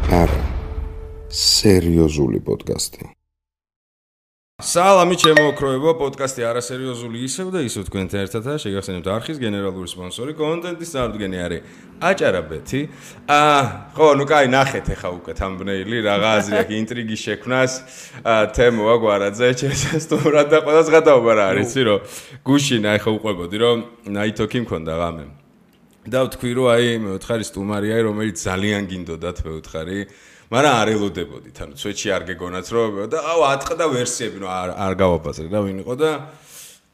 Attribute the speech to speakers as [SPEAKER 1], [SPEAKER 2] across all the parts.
[SPEAKER 1] არა, სერიოზული პოდკასტი.
[SPEAKER 2] სალამი ჩემო ოქროებო, პოდკასტი არასერიოზული ისევ და ისევ თქვენთან ერთადაა. შეგახსენებთ არხის გენერალური სპონსორი, კონტენტის წარდგენი არის აჭარაბეთი. ხო, ნუ კაი, ნახეთ ახლა უკვე თამბნეილი, რაღა აზრი აქვს ინტრიგის შექმნას. თემო აგვარაძე, შესასტუმრად და ყველას გადაობა რა არის, იცი რომ გუშინა ახლა უყვებოდი რომ ნაითოქი მქონდა ღამე. და ვთქვი რომ აი მე ვთხარი სტუმარია, რომელიც ძალიან გინდოდათ მე ვთხარი. მაგრამ არ ელოდებოდით, ანუ სვეტში არ გეგონათ რომ და აუ ატყდა ვერსიები, ნუ არ გავაბაზრე რა ვინ იყო და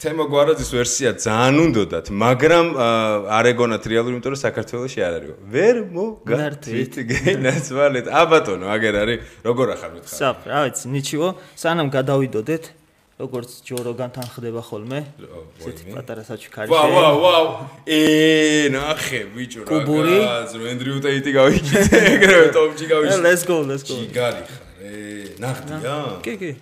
[SPEAKER 2] თემო გვარაძის ვერსია ძალიან უნდოდათ, მაგრამ არ ეგონათ რეალური, იმიტომ რომ საქართველოში არ არის. ვერ მოგართვით გენაცვალეთ. აბატონო, აგერ არის, როგორ ახარ მითხარ?
[SPEAKER 3] საფ, რა ვიცი, ნიჩიო, სანამ გადავიდოდეთ, როგორც ჯოროგანთან ხდება ხოლმე. ესეთი პატარა საჩუქარი.
[SPEAKER 2] ვაუ. ნახე, ბიჭო, რა გაზრო, ენდრიუ ტეიტი გავიჭიდე, ეგრევე ტოპჯი გავიჭიდე.
[SPEAKER 3] Let's go.
[SPEAKER 2] ჯიგარი ხარ, ნახდია?
[SPEAKER 3] კი.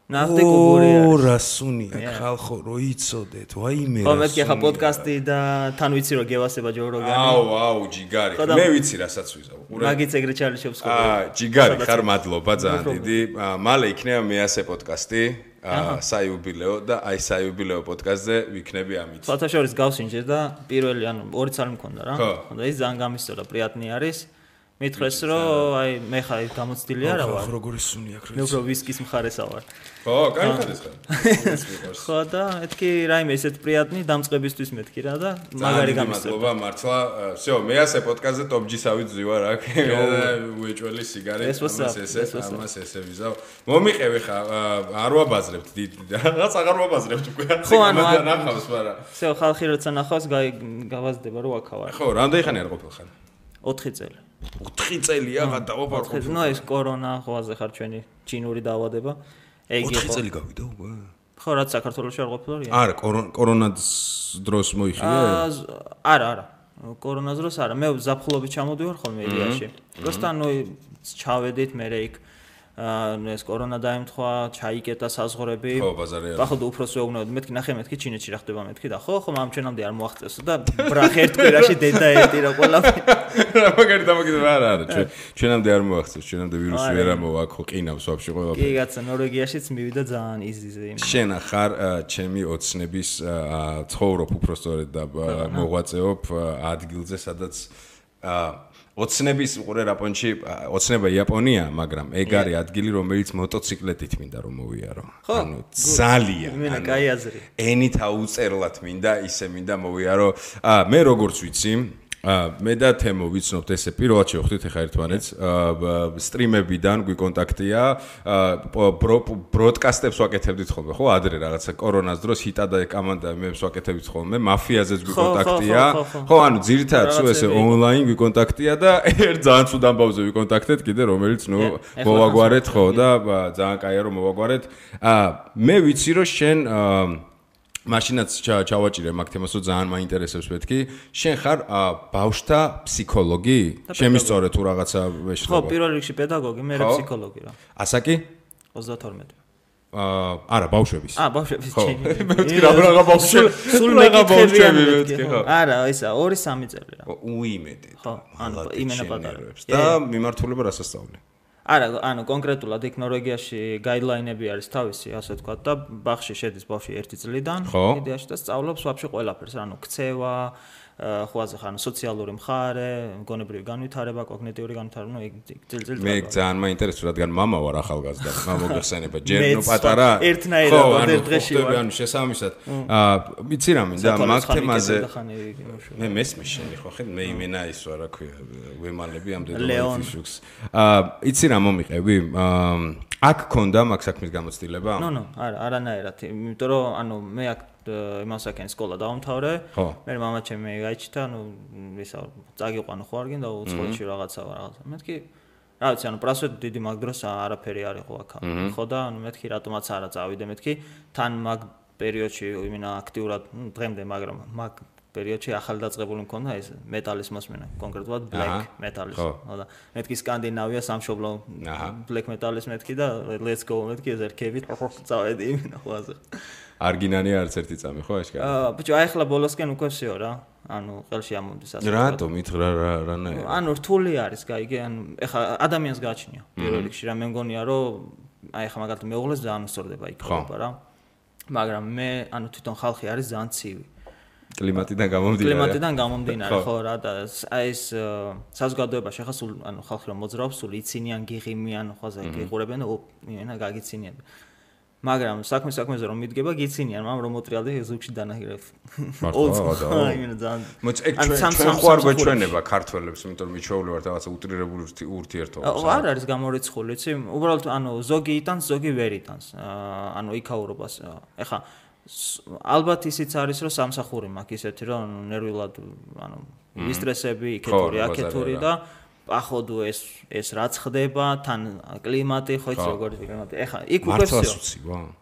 [SPEAKER 3] ნახდე კუბურია.
[SPEAKER 2] რასუნია, ხალხო, რო იცოდეთ, ვაიმე.
[SPEAKER 3] ხო, მეთქი ახლა პოდკასტი და თან ვიცი რომ გევასება ჯოროგანი.
[SPEAKER 2] აუ, ჯიგარი. მე ვიცი რასაც ვიზავ.
[SPEAKER 3] მაგიც ეგრე ჩალიშვებს ხოლმე.
[SPEAKER 2] ჯიგარი ხარ, მადლობა ძალიან დიდი. მალე იქნება მეასე პოდკასტი. საიუბილეო და აი საიუბილეო პოდკასტზე ვიქნები ამით.
[SPEAKER 3] ფათაშორის გავსინჯე და პირველი ანუ ორი წალი მქონდა რა. და ის ძალიან გამისწორა, პრიატნი არის. მითხრეს რომ აი მე ხარ გამოცდილი არა ვარ.
[SPEAKER 2] როგორი სუნი აქვს.
[SPEAKER 3] მე უფრო ვისკის მხარესა ვარ.
[SPEAKER 2] ხო, კაი ხარ.
[SPEAKER 3] ხო და მეთქი რაიმე ესეთ პრიატნი დამწყებისთვის მეთქი რა და მაგარი გამისწორა.
[SPEAKER 2] მადლობა მართლა. всё, მეასე პოდკასტზე ტოპჯისავით ზივარ აქ. უეჭველი სიგარი, ამას ესე ვიზავ. მომიყევი ხა, არ ვაბაზრებთ რაღაც აღარ ვაბაზრებთ უკვე.
[SPEAKER 3] ხო, ანუ
[SPEAKER 2] ნახავს, მაგრამ.
[SPEAKER 3] всё, ხალხი როცა ნახავს, გავაზრდება რომ აქა ვარ.
[SPEAKER 2] ხო, რამდენი ხანი არ ყოფილ ხარ?
[SPEAKER 3] 4 წელი.
[SPEAKER 2] 4 წელია გადავაფარ.
[SPEAKER 3] ნუ ეს კორონა ხოვაზე ხარ ჩვენი ჩინური დაავადება.
[SPEAKER 2] ეგ იყო 4 წელი გავიდა უკვე.
[SPEAKER 3] ხო, რაც საქართველოში არ ყოფილა.
[SPEAKER 2] არა, კორონას დროს მოიხილე?
[SPEAKER 3] არა. კორონას დროს არა. მე ზაფხულობით ჩამოდივარ ხოლმე ილიაში. просто ნუ ჩავედით მე იქ ეს კორონა დაემთხვა, ჩაიკეტა საზღვრები.
[SPEAKER 2] ხო, ბაზარი არა.
[SPEAKER 3] ახლა უფროს ვეუბნებოდი, მეთქი ნახე მეთქი ჩინეთში რა ხდება მეთქი და ხო, ამ ჩვენამდე არ მოაღწევსო და ბრახ ერთ კვირაში დედა ერთი რა ყველაფერი.
[SPEAKER 2] რა მაგარი დამოკიდება არა, ჩვენამდე არ მოაღწევს, ჩვენამდე ვირუსი ვერ ამოვა, ხო, ყინავს ვაფშე ყველაფერი.
[SPEAKER 3] კი, კაცო, ნორვეგიაშიც მივიდა ძალიან იზიზე იმ.
[SPEAKER 2] შენ ხარ ჩემი ოცნების ცხოვრობ უბრალოდ და მოღვაწეობ ადგილზე, სადაც ოცნების უყურე რაპონში, ოცნება იაპონია, მაგრამ ეგ არის ადგილი, რომელიც მოტოციკლეტით მინდა რომ მოვიარო. ანუ ძალიან.
[SPEAKER 3] მენა კაი აზრი.
[SPEAKER 2] ენით აუწერლად მინდა, ისე მინდა მოვიარო. მე როგორც ვიცი, მე და თემო ვიცნობთ ესე პირველად შევხვდით ახლა ერთმანეთს სტრიმებიდან გვიკონტაქტია ბროდკასტებს ვაკეთებდით ხოლმე ხო ადრე რაღაცა კორონას დროს ჰიტა და კამანდა მებს ვაკეთებდით ხოლმე მაფიაზეც გვიკონტაქტია ხო ანუ ძირითადად სულ ესე ონლაინ გვიკონტაქტია და ერთ ძალიან ცუდ ამბავზე ვიკონტაქტეთ კიდე რომელიც ნუ მოვაგვარეთ ხო და ძალიან კაია რომ მოვაგვარეთ მე ვიცი რომ შენ მაშინაც ჩავაჭირე მაგ თემას რომ ძალიან მაინტერესებს მეთქი შენ ხარ ბავშვთა ფსიქოლოგი შემისწორე თუ რაღაცა ვეშლება
[SPEAKER 3] ხო პირველ რიგში პედაგოგი მე ფსიქოლოგი რა
[SPEAKER 2] ასაკი
[SPEAKER 3] 32
[SPEAKER 2] არა ბავშვების
[SPEAKER 3] ბავშვების
[SPEAKER 2] ჩემი მე ვთქვი რა ბავშვები
[SPEAKER 3] სულ მეკითხები მეთქი ხო არა ისა 2-3 წელი რა
[SPEAKER 2] უიმედე
[SPEAKER 3] ხო ანუ იმენა პატარა
[SPEAKER 2] და მიმართულება რასასწავლი
[SPEAKER 3] არა, ანუ კონკრეტულად იქ ნორვეგიაში გაიდლაინები არის თავისი, ასე ვთქვათ და ბაღში შედის ბავშვი 1 წლიდან, იდეაში და სწავლობს ვაფშე ყველაფერს, ანუ ქცევა, ხვაზე ხან სოციალური მხარე, მგონებრივი განვითარება, კოგნიტიური განვითარება, ნუ ძილ-ძილ
[SPEAKER 2] მე ძალიან მაინტერესებს, რადგან მამა ვარ ახალგაზრდა, მოგეხსენება, ჯერ ნუ პატარა.
[SPEAKER 3] ერთნაირად ერთ დღეში
[SPEAKER 2] ვარ. ანუ შესაბამისად. ვიცი რა მინდა, მაგ თემაზე. მე მესმის შენი ხო ხე, მე იმენა ის ვარ, რა ქვია, ვემალები ამ დედოფალ ფიშუქს. იცი რა მომიყევი? აქ ქონდა მაგ საქმის გამოცდილება?
[SPEAKER 3] ნუ, არანაირად, იმიტომ რომ ანუ მე აქ იმასაკენ სკოლა დაუმთავრე. მე მამა ჩემი გაიჩიტა, ანუ ისა წაგიყვანო ხო არ გინდა უცხოეთში რაღაცა. მეთქი რა ვიცი, ანუ პრასვეტ დიდი მაგ დროს არაფერი არ იყო აქ. ხო და ანუ მეთქი რატომაც არა წავიდე მეთქი თან მაგ პერიოდში იმენა აქტიურად დღემდე, მაგრამ მაგ პერიოდში ახალდაწყებული მქონდა ეს მეტალის მოსმენა, კონკრეტულად black metal-ის. ხო და მეთქი სკანდინავია სამშობლო black metal-ის მეთქი და let's go მეთქი ეს ერქებით წავედი იმენა ხვაზე.
[SPEAKER 2] არგინანი არც ერთი წამი ხო აშკარა?
[SPEAKER 3] ბიჭო, აი ახლა ბოლოსკენ უკვე всё რა. ანუ ყელში ამომდის ასე.
[SPEAKER 2] რატომ რანაირად?
[SPEAKER 3] ანუ რთული არის, გაიგე, ანუ ეხლა ადამიანს გააჩნია პირველ რიგში რა მე მგონია რომ აი ეხლა მაგალითად მეუღლეს ძალიან უსწორდება იქ ხობა რა. მაგრამ მე ანუ თვითონ ხალხი არის ძალიან ცივი. კლიმატიდან გამომდინარე ხო რა და აი ეს საზოგადოებაში ახლა სულ ანუ ხალხი რომ მოძრაობს სულ იცინიან გიღიმიან ხოზე გიყურებენ ენა გაგიცინიან მაგრამ საქმეზე რომ მიდგება გიცინიან მაგრამ რომ მოტრიალდი ზუგში დანაირებ
[SPEAKER 2] ჩვენ ხوار გვეჩვენება ქართველებს იმიტომ რომ მიჩვეული ვართ რაღაცა უტრირებული ურთიერთობებს
[SPEAKER 3] არ არის გამორიცხული იცი უბრალოდ ანუ ზოგი იტანს ზოგი ვერ იტანს ანუ იქაურობას ეხლა ალბათ ისიც არის რომ სამსახური მაქვს ისეთი რომ ნერვიულად ანუ ისტრესები იქეთური აქეთური და ახოდო ეს რაც ხდება თან კლიმატი ხო იცი როგორი კლიმატი ეხა იქ უკვე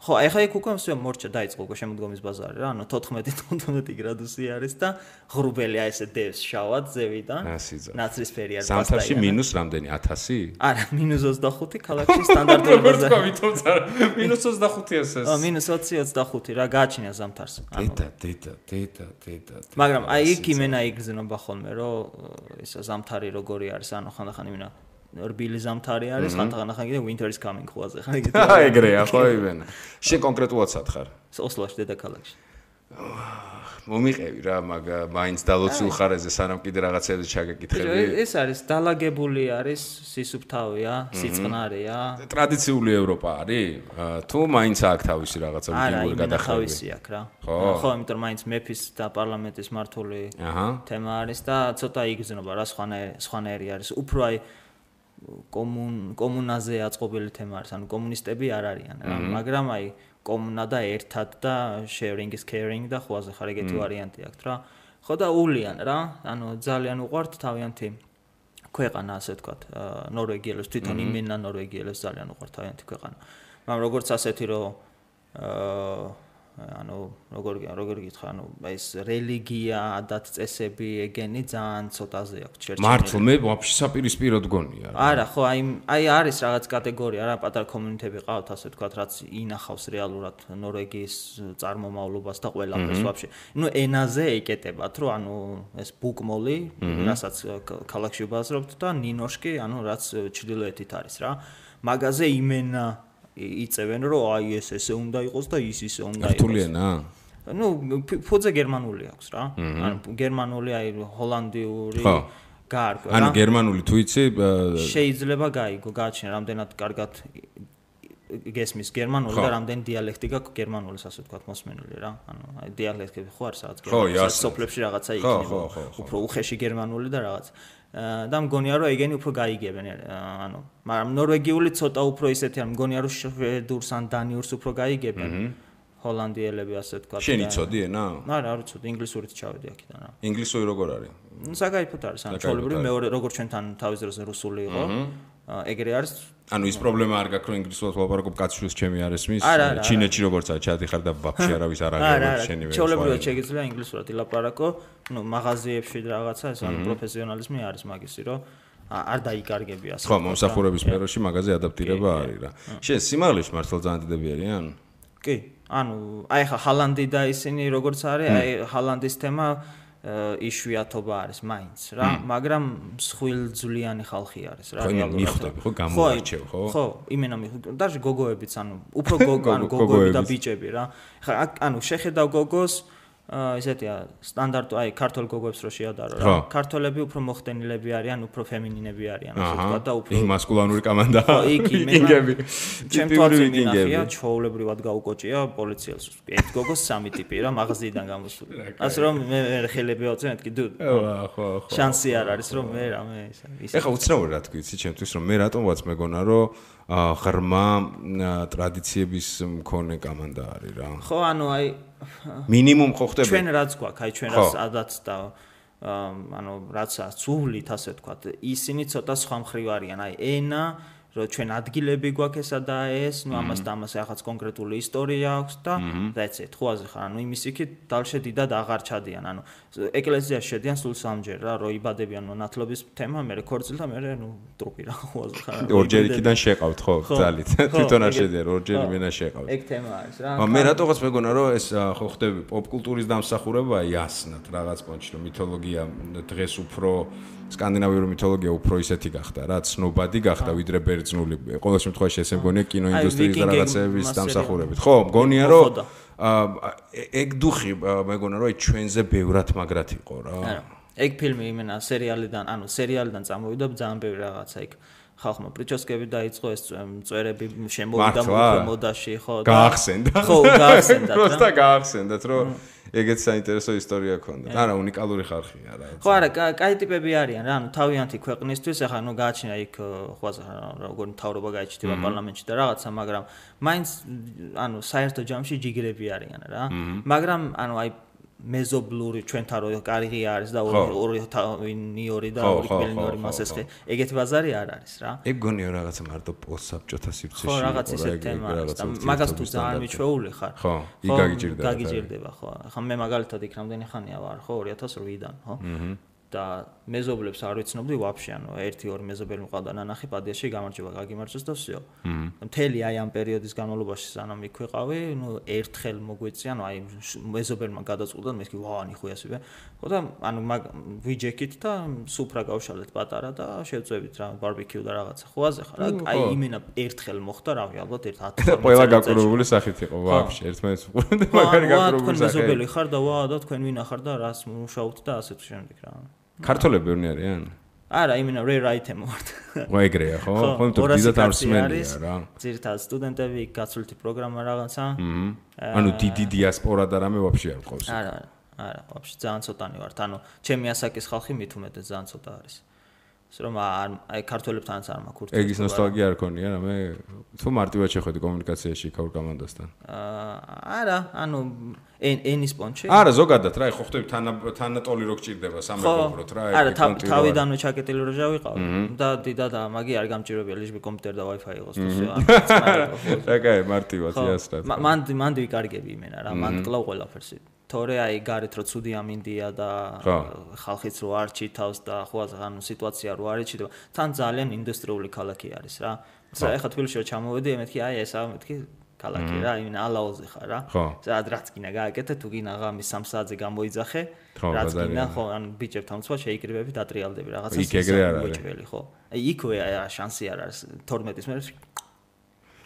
[SPEAKER 3] ხო ეხა იქ უკვე მსვე მორჩა დაიწყო უკვე შემოდგომის ბაზარი რა ანუ 14-15 გრადუსი არის და ღრუბელი აი ესე დევს შავად ზევიდან ნაცრისფერი არის
[SPEAKER 2] ზამთარში მინუს რამდენი 1000
[SPEAKER 3] არა -25 ქალაქში სტანდარტული ბაზარი
[SPEAKER 2] -25 ეს
[SPEAKER 3] -20-25 რა გააჩნია ზამთარს
[SPEAKER 2] დედა
[SPEAKER 3] მაგრამ აი იქ იმენა იგრძნობა ხოლმე რომ ისა ზამთარი როგორი არის ანუ ხანდახან იმენა რბილი ზამთარი არის ხანდახან კიდე winter is coming ხვაზე ხა იგივე
[SPEAKER 2] ეგრეა ხო იმენა შენ კონკრეტულად სათხარ
[SPEAKER 3] ოსლოში დედაქალაქში
[SPEAKER 2] მომიყევი რა მაინც დალოცულ ხარეზე სანამ კიდე რაღაცებზე ჩაგეკითხები
[SPEAKER 3] ეს არის დალაგებული არის სისუფთავია სიწყნარია
[SPEAKER 2] ტრადიციული ევროპა არის თუ მაინც აქ თავისი რაღაცა ვიდეოური გადახვევი
[SPEAKER 3] თავისი აქ რა ხო იმიტომ მაინც მეფის და პარლამენტის მართული თემა არის და ცოტა იგრძნობა რა სხვანაირი არის უფრო აი კომუნაზე აწყობილი თემა არის ანუ კომუნისტები არ არიან რა მაგრამ აი კომუნა და ერთად და sharing is caring და ხوازე ხარ ეგეთი ვარიანტი აქვს რა ხო და ულიან რა ანუ ძალიან უყვართ თავიანთი ქვეყანა ასე ვთქვათ ნორვეგიელებს თვითონ იმენა ნორვეგიელებს ძალიან უყვართ თავიანთი ქვეყანა მაგრამ როგორც ასეთი რომ ანუ როგორ გითხრა ანუ ეს რელიგია ადათ წესები ეგენი ძალიან ცოტაზე აქვს ჩერჩენი
[SPEAKER 2] მართლა მე ვაფშე საპირისპიროდ გონია
[SPEAKER 3] არა ხო აი არის რაღაც კატეგორია რა პატარა კომუნიტები ყავთ ასე ვთქვათ რაც ინახავს რეალურად ნორვეგიის წარმომავლობას და ყველაფერს ვაფშე ნუ ენაზე ეკეტებათ რომ ანუ ეს ბუკმოლი რასაც ქალაქში ვბაზრობთ და ნინოშკი ანუ რაც ჩრდილოეთით არის რა მაგაზე იმენა იწევენ რომ აი ესე უნდა იყოს და ისე უნდა იყოს.
[SPEAKER 2] ქართულიანა?
[SPEAKER 3] ნუ ფუძე გერმანული აქვს რა. ანუ გერმანული აი ჰოლანდიური გაარგვა რა.
[SPEAKER 2] ანუ გერმანული თუ იცი
[SPEAKER 3] შეიძლება გაიგო, გააჩნია რამდენად კარგად გესმის გერმანული და რამდენი დიალექტი გაქვს გერმანულის ასე ვთქვათ მოსმენილი რა. ანუ აი დიალექტები ხო არის რაღაც გერმანულის სოფლებში რაღაცა იქნება. უფრო უხეში გერმანული და რაღაც და მგონია რომ ეგენი უფრო გაიგებენ ანუ მაგრამ ნორვეგიული ცოტა უფრო ისეთი ან მგონია რომ შვედურს ან დანიურს უფრო გაიგებენ ჰოლანდიელები ასე ვთქვათ
[SPEAKER 2] შენ იცოდი ენა?
[SPEAKER 3] არა არ ვიცოდი ინგლისურით ჩავედი აქედან რა
[SPEAKER 2] ინგლისური როგორ არის?
[SPEAKER 3] საკაიფოდ არის ან ჩვეულებრივი მეორე როგორც ჩვენთან თავის დროზე რუსული იყო ეგრე არის
[SPEAKER 2] ანუ ის პრობლემა არ გაქვს რომ ინგლისურად ვლაპარაკობ კაცშვილს ჩემი არ ესმის ჩინეთში როგორც არის ჩადიხარ და ვაფშე არავის არ აღარ შენი ვერ
[SPEAKER 3] ჩვეულებრივად შეგიძლია ინგლისურად ილაპარაკო ნუ მაღაზიებში რაღაცა ეს ანუ პროფესიონალიზმი არის მაგისი რომ არ დაიკარგები ასე
[SPEAKER 2] ხო მომსახურების სფეროში მაღაზია ადაპტირება არის რა შენ სიმაღლეში მართლა ძალიან დიდები არიან
[SPEAKER 3] კი ანუ აი ხა ჰალანდი და ისინი როგორც არის აი ჰალანდის თემა იშვიათობა არის მაინც რა მაგრამ მსხვილძვლიანი ხალხი არის რა
[SPEAKER 2] რეალურად მიხვდები ხო გამოარჩევ ხო
[SPEAKER 3] ხო იმენა მიხვდები даже გოგოებიც ანუ უფრო გოგოები და ბიჭები რა ხა ანუ შეხედავ გოგოს ისეთია სტანდარტო აი ქართულ გოგოებს რო შეადარო რა ქართველები უფრო მოხდენილები არიან უფრო ფემინინები არიან ასე ვთქვა და უფრო
[SPEAKER 2] მასკულანური კამანდა
[SPEAKER 3] ვიკინგები ჩემთვის მინახია ჩაოლებრივად გაუკოჭია პოლიციელს ერთ გოგოს სამი ტიპი რა მაღაზიიდან გამოსული ასე რომ მე ხელები ავწევ მეთქი დუ
[SPEAKER 2] ხო
[SPEAKER 3] შანსი არ არის რომ მე რამე
[SPEAKER 2] ისა ეხა უცნაური რა თქვი იცი ჩემთვის რომ მე რატომღაც მეგონა რომ ღრმა ტრადიციების მქონე კამანდა არის რა
[SPEAKER 3] ხო ანუ აი
[SPEAKER 2] მინიმუმ ხო ხდება
[SPEAKER 3] ჩვენ რაც გვაქვს აი ჩვენ რაც ადაც და ანუ რაც სულით ასე ვთქვათ ისინი ცოტა სხვა მხრივ არიან აი ენა რომ ჩვენ ადგილები გვაქვს ესა და ეს, ნუ ამას და ამას რაღაც კონკრეტული ისტორია აქვს და that's it. ხო ასე ხარ, ანუ იმის იქით დალშედიდად აღარ ჩადიან, ანუ ეკლესიაში შედიან სულ სამჯერ რა, რომ იბადებიან მონათლობის თემა, მე ქორწილ და მე ნუ ტრუპი რა, ხო ასე ხარ.
[SPEAKER 2] ორჯერ იქიდან შეყავთ ხო, ძალით. თვითონ არ შედიან, ორჯერ მენა შეყავთ.
[SPEAKER 3] ეგ თემა არის რა.
[SPEAKER 2] მე რატოღაც მეგონა რომ ეს ხო ხდები პოპ კულტურის დამსახურებაა იასნად რაღაც პონჩი, რომ მითოლოგია დღეს უფრო სკანდინავიური მითოლოგია უფრო ისეთი გახდა რა, ცნობადი გახდა ვიდრე ბერძნული. ყოველ შემთხვევაში ესე მგონია კინოინდუსტრიის და რაღაცების დამსახურებით. ხო, მგონია რომ ეგ დუხი მეგონა რომ ჩვენზე ბევრად მაგრად იყო რა.
[SPEAKER 3] ეგ ფილმი იმენა სერიალიდან წამოვიდა ძალიან ბევრი რაღაცა იქ. ხალხმა პრიჩოსკები დაიწყო ეს წვერები შემოვიდა მოდაში ხო
[SPEAKER 2] და გაახსენდა.
[SPEAKER 3] ხო, გაახსენდა.
[SPEAKER 2] პროსტა გაახსენდათ რომ ეგეც საინტერესო ისტორია ქონდა. არა, უნიკალური ხალხია რა.
[SPEAKER 3] ხო, არა, კაი ტიპები არიან რა, ანუ თავიანთი ქვეყნისთვის, ახლა ნუ გააჩინა იქ ხო როგორ მთავრობა გაიჩნდება პარლამენტში და რაღაცა, მაგრამ მაინც ანუ საერთო ჯამში ჯიგრები არიან რა. მაგრამ ანუ აი მეზობლური ჩვენთან რო კარგი არის და ორი ნიორი და ორი კბილინორი მასესხი ეგეთი ბაზარი არ არის რა.
[SPEAKER 2] ეგ გონია რაღაცა მარტო პოსტსაბჭოთა სივრცეში.
[SPEAKER 3] ხო, რაღაც ისეთი თემა არის და მაგას თუ ძალიან მიჩვეული ხარ.
[SPEAKER 2] ხო, იქ
[SPEAKER 3] გაგიჭირდება ხო. ახლა მე მაგალითად იქ რამდენი ხანია ვარ ხო 2008-დან ხო. და მეზობლებს არ ვიცნობდი ვაფშე, ანუ 1-2 მეზობელი მყავდა ნანახი პადიაში გამარჯობა, გაგიმარჯოს და всё. მთელი აი ამ პერიოდის განმავლობაში სანამ იქ ვიყავი, ნუ ერთხელ მოგვეწია, ანუ აი მეზობელმა გადაწყვიტა, მე ვთქვი, ვაა, ნიხუიასიბე. ხო და ანუ ვიჯექით და სუფრა გავშალეთ პატარა და შევწევით რა, ბარბეკიუ და რაღაცა. ხო აზე ხარ? აი იმენა ერთხელ მოხდა, რავი, ალბათ 1-10
[SPEAKER 2] ყველა გაკურებული სახით იყო, ვაფშე, ერთმანეთს უყურებდა, მაგარი გაკურებული სახით.
[SPEAKER 3] თქვენ მეზობელი ხარ და ვა და თქვენ ვინა ხარ და რას მუშაობთ და ასე თუ შემდეგ რა.
[SPEAKER 2] ქართველები ბევრი არიან?
[SPEAKER 3] არა, იმენა rare item ვართ.
[SPEAKER 2] ხო, ეგრეა, ხო? ხო, იმიტომ დიდად არ მსმენია რა.
[SPEAKER 3] ძირითადად სტუდენტები, გაცვლითი პროგრამა რაღაცა.
[SPEAKER 2] ანუ დიდი დიასპორა და რამე ვაფშე არ ყავს.
[SPEAKER 3] არა, ვაფშე ძალიან ცოტანი ვართ. ანუ ჩემი ასაკის ხალხი მით უმეტეს ძალიან ცოტა არის. რომ აი ქართველებთანაც არ მაქვს ურთიერთობა.
[SPEAKER 2] ეგის ნოსტალგია არ ქონია რა, მე თუ მარტივად შეხვედი კომუნიკაციაში ქაურ კომანდასთან.
[SPEAKER 3] არა, ანუ ენის პონჩი.
[SPEAKER 2] არა, ზოგადად რა, ხო ხდები თანატოლი რო გჭირდება სამეგობროდ რა,
[SPEAKER 3] ეგ კონტინუა. არა, თავიდანვე ჩაკეტილი როჟა ვიყავ და დიდად მაგი არ გამჭირებია ლიჟბი კომპიუტერი და Wi-Fi იყოს თუ всё.
[SPEAKER 2] რა კაი, მარტივად იასრად.
[SPEAKER 3] მან ვიკარგები იმენა რა, მან კლავ ყველაფერს. თორე აი გარეთ რო ცუდი ამინდია და ხალხიც რო არ ჩითავს და ხო ანუ სიტუაცია რო არ იჩიდება, თან ძალიან ინდუსტრიული ქალაქი არის რა. ეხლა თბილისში რო ჩამოვედი, მეთქი აი ესა მეთქი ქალაქი რა, იმენა ალაოზე ხარ რა. სადაც რაც გინდა გააკეთე, თუ გინდა ღამის 3 საათზე გამოიძახე, რაც გინდა ხო, ანუ ბიჭებთან უცხო შეიკრიბები, დატრიალდები რაღაცა.
[SPEAKER 2] იქ ეგრე არ არის.
[SPEAKER 3] ხო. აი იქვე შანსი არ არის 12-ის მერე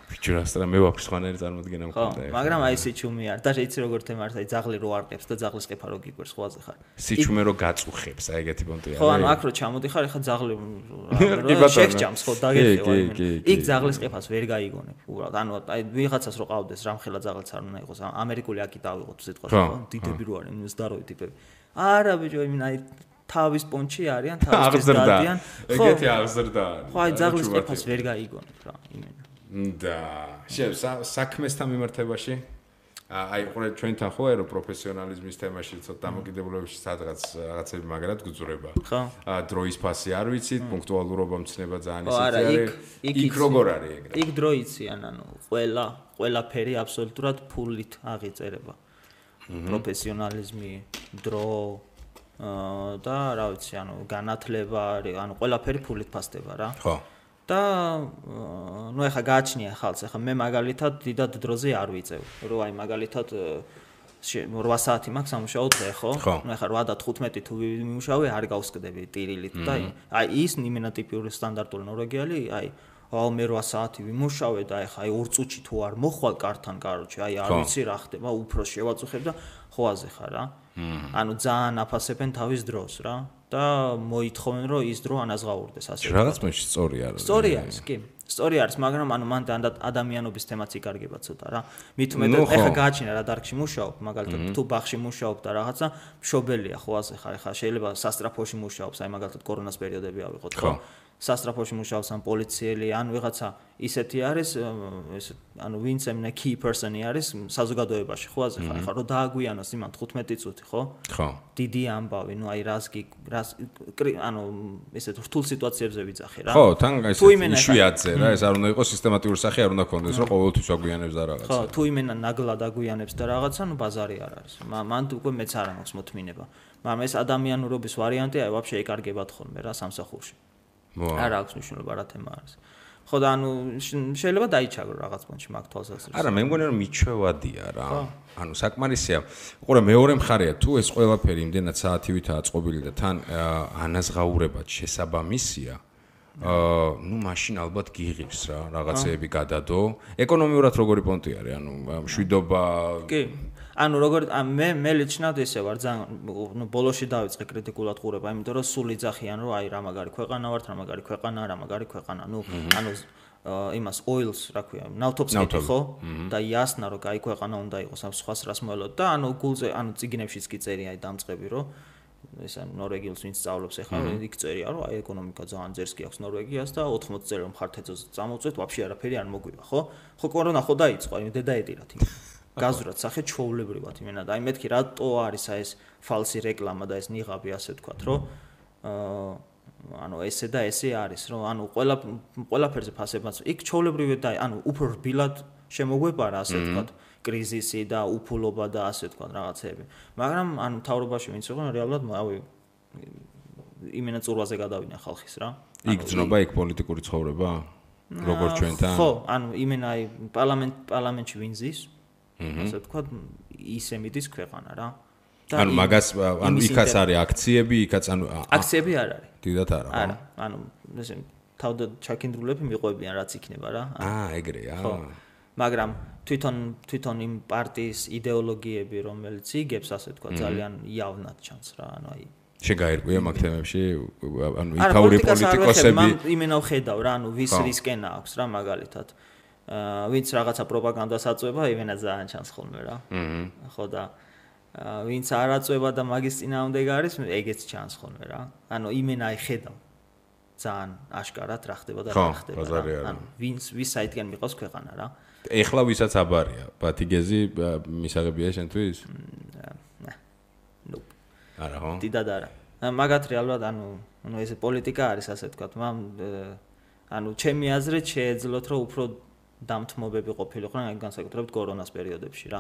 [SPEAKER 2] ფიჩურას და მე ვაფშე სხვანაირი წარმოდგენა მქონდა.
[SPEAKER 3] მაგრამ აი სიჩუმე არ და იცი როგორ თემარს აი ძაღლი რო არყებს და ძაღლის ყეფა რო გიგვერს ხვაზე ხარ.
[SPEAKER 2] სიჩუმე რო გაწუხებს აი ეგეთი პონტია.
[SPEAKER 3] ხო, ანუ აქ რო ჩამოდიხარ, ეხა ძაღლი შეხჭამს ხო დაგეხევა. იქ ძაღლის ყეფას ვერ გაიგონებ უბრალოდ. ანუ აი ვიღაცას რო ყავდეს რამხელა ძაღლიც არ უნდა იყოს. ამერიკული აკი დავიღოთ სიტყვას ხო? დიდები რო არიან, ზდაროი ტიპები. არა ბიჭო, იმენ აი თავის პონჩი არიან, თავის დადიან.
[SPEAKER 2] ეგეთი აღზრდა არის.
[SPEAKER 3] ხო, აი ძაღლის ყეფას ვერ გაიგონებ რა, იმენ.
[SPEAKER 2] და საქმესთან მიმართებაში აი ყურე ჩვენთან ხო აერო პროფესიონალიზმის თემაში ცოტა დამოკიდებულებებში სადღაც რაღაცები მაგრად გძურება.
[SPEAKER 3] ხო.
[SPEAKER 2] დროის ფასი არ ვიცით, პუნქტუალურობა მცნება ძალიან ისეთი არის. იქ როგორ არის ეგრე?
[SPEAKER 3] იქ დრო იციან, ანუ ყველაფერი აბსოლუტურად ფულით აღიწერება. პროფესიონალიზმი, დრო და რა ვიცი, ანუ განათლება, ანუ ყველაფერი ფულით ფასდება რა.
[SPEAKER 2] ხო.
[SPEAKER 3] და ნუ ეხა გააჩნია ხალხს, ეხა მე მაგალითად დიდად დროზე არ ვიწევ, რომ აი მაგალითად 8 საათი მაქვს სამუშაო დღე, ხო? ნუ ეხა 8 და 15 თუ ვიმუშავე, არ გავსკდები ტირილით და აი ის იმენა ტიპური სტანდარტული ნორვეგიალი, აი მე 8 საათი ვიმუშავე და ეხა აი 2 წუთში თუ არ მოხვალ კართან, კაროჩე, აი არ ვიცი რა ხდება, უფრო შევაწუხებ და ხოაზე ხარ რა. ანუ ძალიან აფასებენ თავის დროს რა. და მოითხოვენ რომ ის დრო ანაზღაურდეს ასე.
[SPEAKER 2] რაღაც მეში სწორი არის.
[SPEAKER 3] სწორი არის, კი. სწორი არის, მაგრამ ანუ მან ადამიანობის თემაც იკარგება ცოტა რა. მით უმეტეს ეხა გააჩინა რა დარგში მუშაობ, მაგალითად თუ ბაღში მუშაობ და რაღაცა მშობელია ხო ასე ხარ, ეხა შეიძლება სასტრაფოში მუშაობს, აი მაგალითად კორონას პერიოდები ავიღოთ ხო. სასტრაფოში მუშაობს ან პოლიციელი, ან ვიღაცა ისეთი არის, ანუ ვინც ემნა key person-ი არის საზოგადოებაში, ხო აზრი ხარ, რომ დააგვიანოს იმან 15 წუთი, ხო?
[SPEAKER 2] ხო.
[SPEAKER 3] დიდი ამბავი, ნუ აი რას ანუ ესეთ რთულ სიტუაციებზე ვიძახი რა.
[SPEAKER 2] ხო, თან ეს იშვიათზე რა, ეს არ უნდა იყოს სისტემატიური სახე, არ უნდა ქონდეს, რომ ყოველთვის აგვიანებს და რაღაცა.
[SPEAKER 3] ხო, თუ იმენა ნაგლად აგვიანებს და რაღაცა, ნუ ბაზარი არ არის. მან უკვე მეც არ მაქვს მოთმინება. მაგრამ ეს ადამიანურობის ვარიანტი აი ვაფშე ეკარგებათ ხოლმე რა სამსახურში. არ აქვს მნიშვნელობა რა თემა არის. ხო და ანუ შეიძლება დაიჩაგრო რაღაც პონჩი მაგ თვალსაზრისით.
[SPEAKER 2] არა, მე მგონი რომ მიჩვევადია რა. ანუ საკმარისია. უყურე მეორე მხარეა თუ ეს ყველაფერი იმდენად საათივითაა წყობილი და თან ანაზღაურებად შესაბამისია. ნუ მაშინ ალბათ გიღებს რა, რაღაცეები გადადო. ეკონომიურად როგორი პონტი არის? ანუ მშვიდობა.
[SPEAKER 3] კი. ანუ როგორ მე ლიჩნად ესე ვარ ძალიან ნუ ბოლოში დავიწყე კრიტიკულად ყურება, იმიტომ რომ სულ იძახიან რომ აი რა მაგარი ქვეყანა ვართ, რა მაგარი ქვეყანა, რა მაგარი ქვეყანა. ნუ ანუ იმას oils რა ქვია, ნავთობს კი ხო? და იასნა რომ აი ქვეყანა უნდა იყოს, ამ სხვას რას მოელოდ და ანუ გულზე ანუ ციგნებშიც კი წერია აი დამწყები რომ ესა ნორვეგიელს ვინც სწავლობს ახლა იქ წერია რომ აი ეკონომიკა ძალიან ძერს კი აქვს ნორვეგიას და 80 წელი რომ ხართეცოს წამოვწვეთ, ვაფშე არაფერი არ მოგვივა, ხო? ხო კორონა ხო დაიწყო, აი დედაეტირათ იმ გაზურად სახე ჩვეულებრივად იმენა და აი მეთქი რატო არის აი ეს ფალსი რეკლამა და ეს ნიღაბი ასე ვთქვათ რომ ანუ ესე და ესე არის რომ ანუ ყველაფერზე ფასებაც იქ ჩვეულებრივი და ანუ უფრო რბილად შემოგვეპარა ასე ვთქვათ კრიზისი და უფულობა და ასე ვთქვათ რაღაცეები მაგრამ ანუ მთავრობაში ვინც იყო რეალურად ავი იმენა წურვაზე გადავიდნენ ხალხის რა
[SPEAKER 2] იქ ძნობა იქ პოლიტიკური ცხოვრება როგორც ჩვენთან
[SPEAKER 3] ხო ანუ იმენა აი პარლამენტში ვინზის ასე ვთქვათ ისე მიდის ქვეყანა რა
[SPEAKER 2] ანუ მაგას ანუ იქაც არის აქციები იქაც ანუ
[SPEAKER 3] აქციები არ არის
[SPEAKER 2] დიდათ არა
[SPEAKER 3] არა ანუ ესე თავდა ჩაკინდრულები მიყვებიან რაც იქნება რა
[SPEAKER 2] ეგრეა
[SPEAKER 3] ხო მაგრამ თვითონ იმ პარტიის იდეოლოგიები რომელიც იგებს ასე ვთქვათ ძალიან იავნად ჩანს რა ანუ აი
[SPEAKER 2] შეგაერკვია მაგ თემებში ანუ იქაური პოლიტიკოსები
[SPEAKER 3] იმენა ვხედავ რა ანუ ვის რისკენა აქვს რა მაგალითად ვინც რაღაცა პროპაგანდას აწვება, იმენა ძალიან ჩანს ხოლმე რა. ხო და ვინც არ აწვება და მაგის წინააღმდეგ არის, ეგეც ჩანს ხოლმე რა. ანუ იმენა აი ხედავ. ძალიან აშკარად რა ხდება და რა ხდება. ანუ ვის საითგან მიყავს ქვეყანა რა.
[SPEAKER 2] ეხლა ვისაც აბარია, ბათიგეზი მისაღებია შენთვის?
[SPEAKER 3] ნუ.
[SPEAKER 2] არა ხო?
[SPEAKER 3] დიდად არა. მაგათ რეალურად ანუ ეს პოლიტიკა არის ასე ვთქვათ, ანუ ჩემი აზრით შეეძლოთ რომ უფრო დამთმობები ყოფილიყვნენ აი განსაკუთრებით კორონას პერიოდებში რა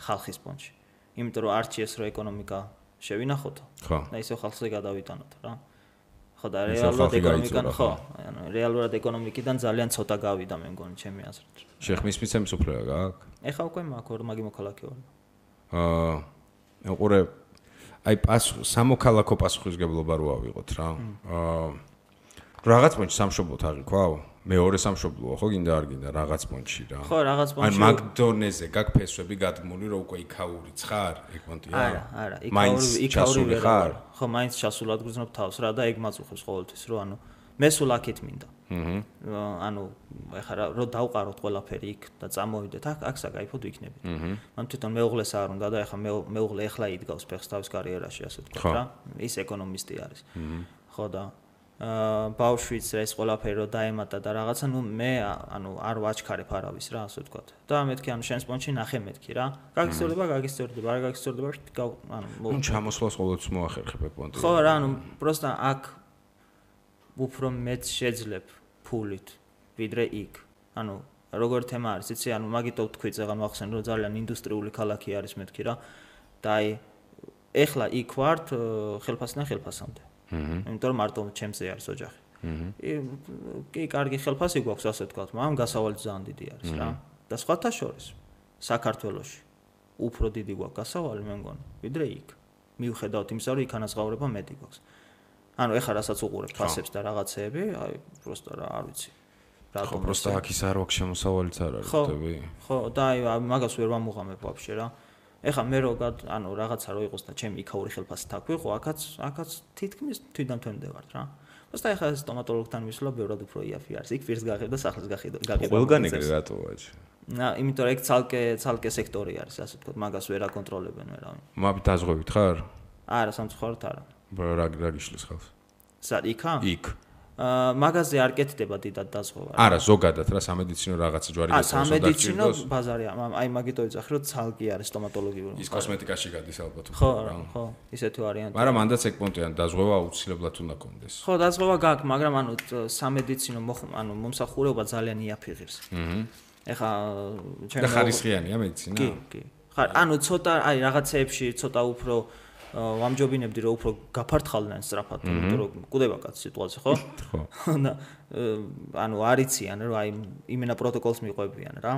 [SPEAKER 3] ხალხის პონჩი. იმიტომ რომ არჩიეს რომ ეკონომიკა შევინახოთო.
[SPEAKER 2] ხო.
[SPEAKER 3] და ისე ხალხზე გადავიტანოთ რა. ხო და რეალურად ეკონომიკიდან ხო, ანუ რეალურად ეკონომიკიდან ძალიან ცოტა გავიდა მე მგონი ჩემი აზრით.
[SPEAKER 2] შეხმის მიცემის უფლება გააქვს?
[SPEAKER 3] ეხა უკვე მაქვს მაგი მოქალაქე ვარ.
[SPEAKER 2] უყურე აი სამოქალაქო პასუხისგებლობა რო ავიღოთ რა. რაღაც პონჩი სამშობლოთ აღიქვაო? მეორე სამშობლოა ხო გინდა არ გინდა რაღაც პონჩი რა.
[SPEAKER 3] ხო რაღაც პონჩი.
[SPEAKER 2] ან მაგდონეზე გაქვს ფესვები გადმული რომ უკვე იქაური ცხარ ეგ პონტია?
[SPEAKER 3] არა, იქაური ხარ. ხო, მაინც ჩასულად გრძნობ თავს რა და ეგ მაწუხებს ყოველთვის რომ ანუ მე სულ აქეთ მინდა. ანუ ეხლა რომ დავყაროთ ყველაფერი იქ და წამოვიდეთ აქ საკაიფოდ ვიქნებით. მან თვითონ მეუღლეს არ უნდა და ეხლა მეუღლე ეხლა იდგავს ფეხს თავის კარიერაში ასე ვთქვათ რა. ის ეკონომისტი არის. ხო და ბავშვიც ეს ყველაფერი რო დაემატა და რაღაცა ნუ მე ანუ არ ვაჩქარებ არავის რა ასე ვთქვათ და მეთქი ანუ შენს პონჩი ნახე მეთქი რა გაგისწორდება არ გაგისწორდება ანუ
[SPEAKER 2] ჩამოსვლას ყოველთვის მოახერხებ პონტი
[SPEAKER 3] ხო რა ანუ პროსტა აქ უფრო მეც შეძლებ ფულით ვიდრე იქ ანუ როგორ თემა არის იცი ანუ მაგითო თქვი წეგან მახსენ რომ ძალიან ინდუსტრიული ქალაქი არის მეთქი რა და აი ეხლა იქ ვართ ხელფასიდან ხელფასამდე იმიტომ რომ მარტო ჩემზე არის ოჯახი. კი, კარგი ხელფასი გვაქვს ასე ვთქვათ, მაგრამ გასავალი ძალიან დიდი არის რა. და სხვათა შორის საქართველოში უფრო დიდი გვაქვს გასავალი მე მგონი, ვიდრე იქ. მიუხედავად იმისა, რომ იქ ანაზღაურება მეტი გვაქვს. ანუ ეხლა რასაც უყურებ ფასებს და რაღაცეები, აი პროსტა რა არ ვიცი.
[SPEAKER 2] ხო, პროსტა აქ ის არ აქვს შემოსავალიც არ არის, ხდები?
[SPEAKER 3] ხო, და აი მაგას ვერ ვამუღამებ ვაფშე რა. ეხლა მე როგორ ანუ რაღაცა რო იყოს და ჩემი იქაური ხელფასი თაქვიყო, აქაც თითქმის თვითდამთვენდე ვარ რა. просто ეხლა ეს სტომატოლოგთან მისვლა ბევრად უფრო იაფი არის. იქ პირს გაღებ და სახლის გაღებ.
[SPEAKER 2] ყველგან ეგრე რატო ვაჭი?
[SPEAKER 3] იმიტომ რომ ეგ ცალკე სექტორი არის, ასე ვთქვათ, მაგას ვერ აკონტროლებენ ვერავინ.
[SPEAKER 2] მაბით დაზღვევით ხარ?
[SPEAKER 3] არა, სამწუხაროდ არა.
[SPEAKER 2] რა გიშლის ხალხს?
[SPEAKER 3] სად იქა?
[SPEAKER 2] იქ.
[SPEAKER 3] მაგაზე არ კეთდება დიდად დაზღვევა.
[SPEAKER 2] არა, ზოგადად რა სამედიცინო რაღაცა ჯვარი გეთხოვს.
[SPEAKER 3] სამედიცინო ბაზარია. აი მაგით ვიძახი, რომ ცალკე არის სტომატოლოგიური.
[SPEAKER 2] ის კოსმეტიკაში გადის ალბათ.
[SPEAKER 3] ხო, ისეთი ვარიანტი.
[SPEAKER 2] მაგრამ მანდაც ეგ პონტიან დაზღვევა აუცილებლად უნდა კონდეს.
[SPEAKER 3] ხო, დაზღვევა გაქვს, მაგრამ სამედიცინო მომსახურება ძალიან იაფიღებს. ეხა
[SPEAKER 2] და ხარისხიანია მედიცინა?
[SPEAKER 3] კი. ცოტა აი რაღაცეებში ცოტა უფრო ვამჯობინებდი რომ უფრო გაფართხალდნენ სწრაფად, იმიტომ რომ კვდება კაც სიტუაცია, ხო? ხო. არიციან რომ აი იმენა პროტოკოლს მიყვებიან რა.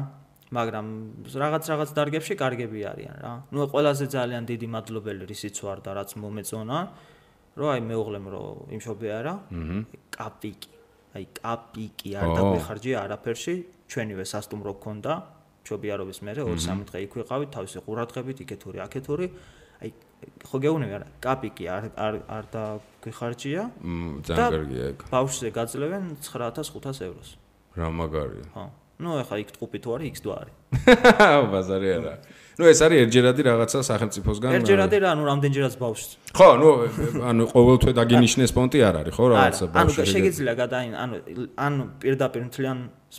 [SPEAKER 3] მაგრამ რაღაც დარგებში კარგები არიან რა. ყველაზე ძალიან დიდი მადლობელი რისიც ვარ და რაც მომეწონა, რომ აი მეუღლემ რომ იმშობე არა, კაპიკი. აი კაპიკი არ დაგვეხარჯია არაფერში, ჩვენივე სასტუმრო გქონდა, მშობიარობის მერე 2-3 დღე იქ ვიყავით, თავისი ყურადღებით, იქეთური, აქეთური. აი ხო გეუბნები არა, კაპიკი არ დაგვეხარჯია.
[SPEAKER 2] ძალიან კარგია ეგ.
[SPEAKER 3] ბავშვზე გაძლევენ 9500 ევროს.
[SPEAKER 2] რა მაგარია.
[SPEAKER 3] ხო. ეხა იქ ტყუპი თუ არის, იქ თუ არის.
[SPEAKER 2] ბაზარი არა. ეს არის ერთჯერადი რაღაცა სახელმწიფოსგან.
[SPEAKER 3] ერთჯერადი რა, რამდენჯერაც ბავშვს.
[SPEAKER 2] ხო, ყოველთვე დაგინიშნეს პონტი არ არის, ხო, რაღაცა ბავშვი.
[SPEAKER 3] შეგიძლია ან პირდაპირ მთლიან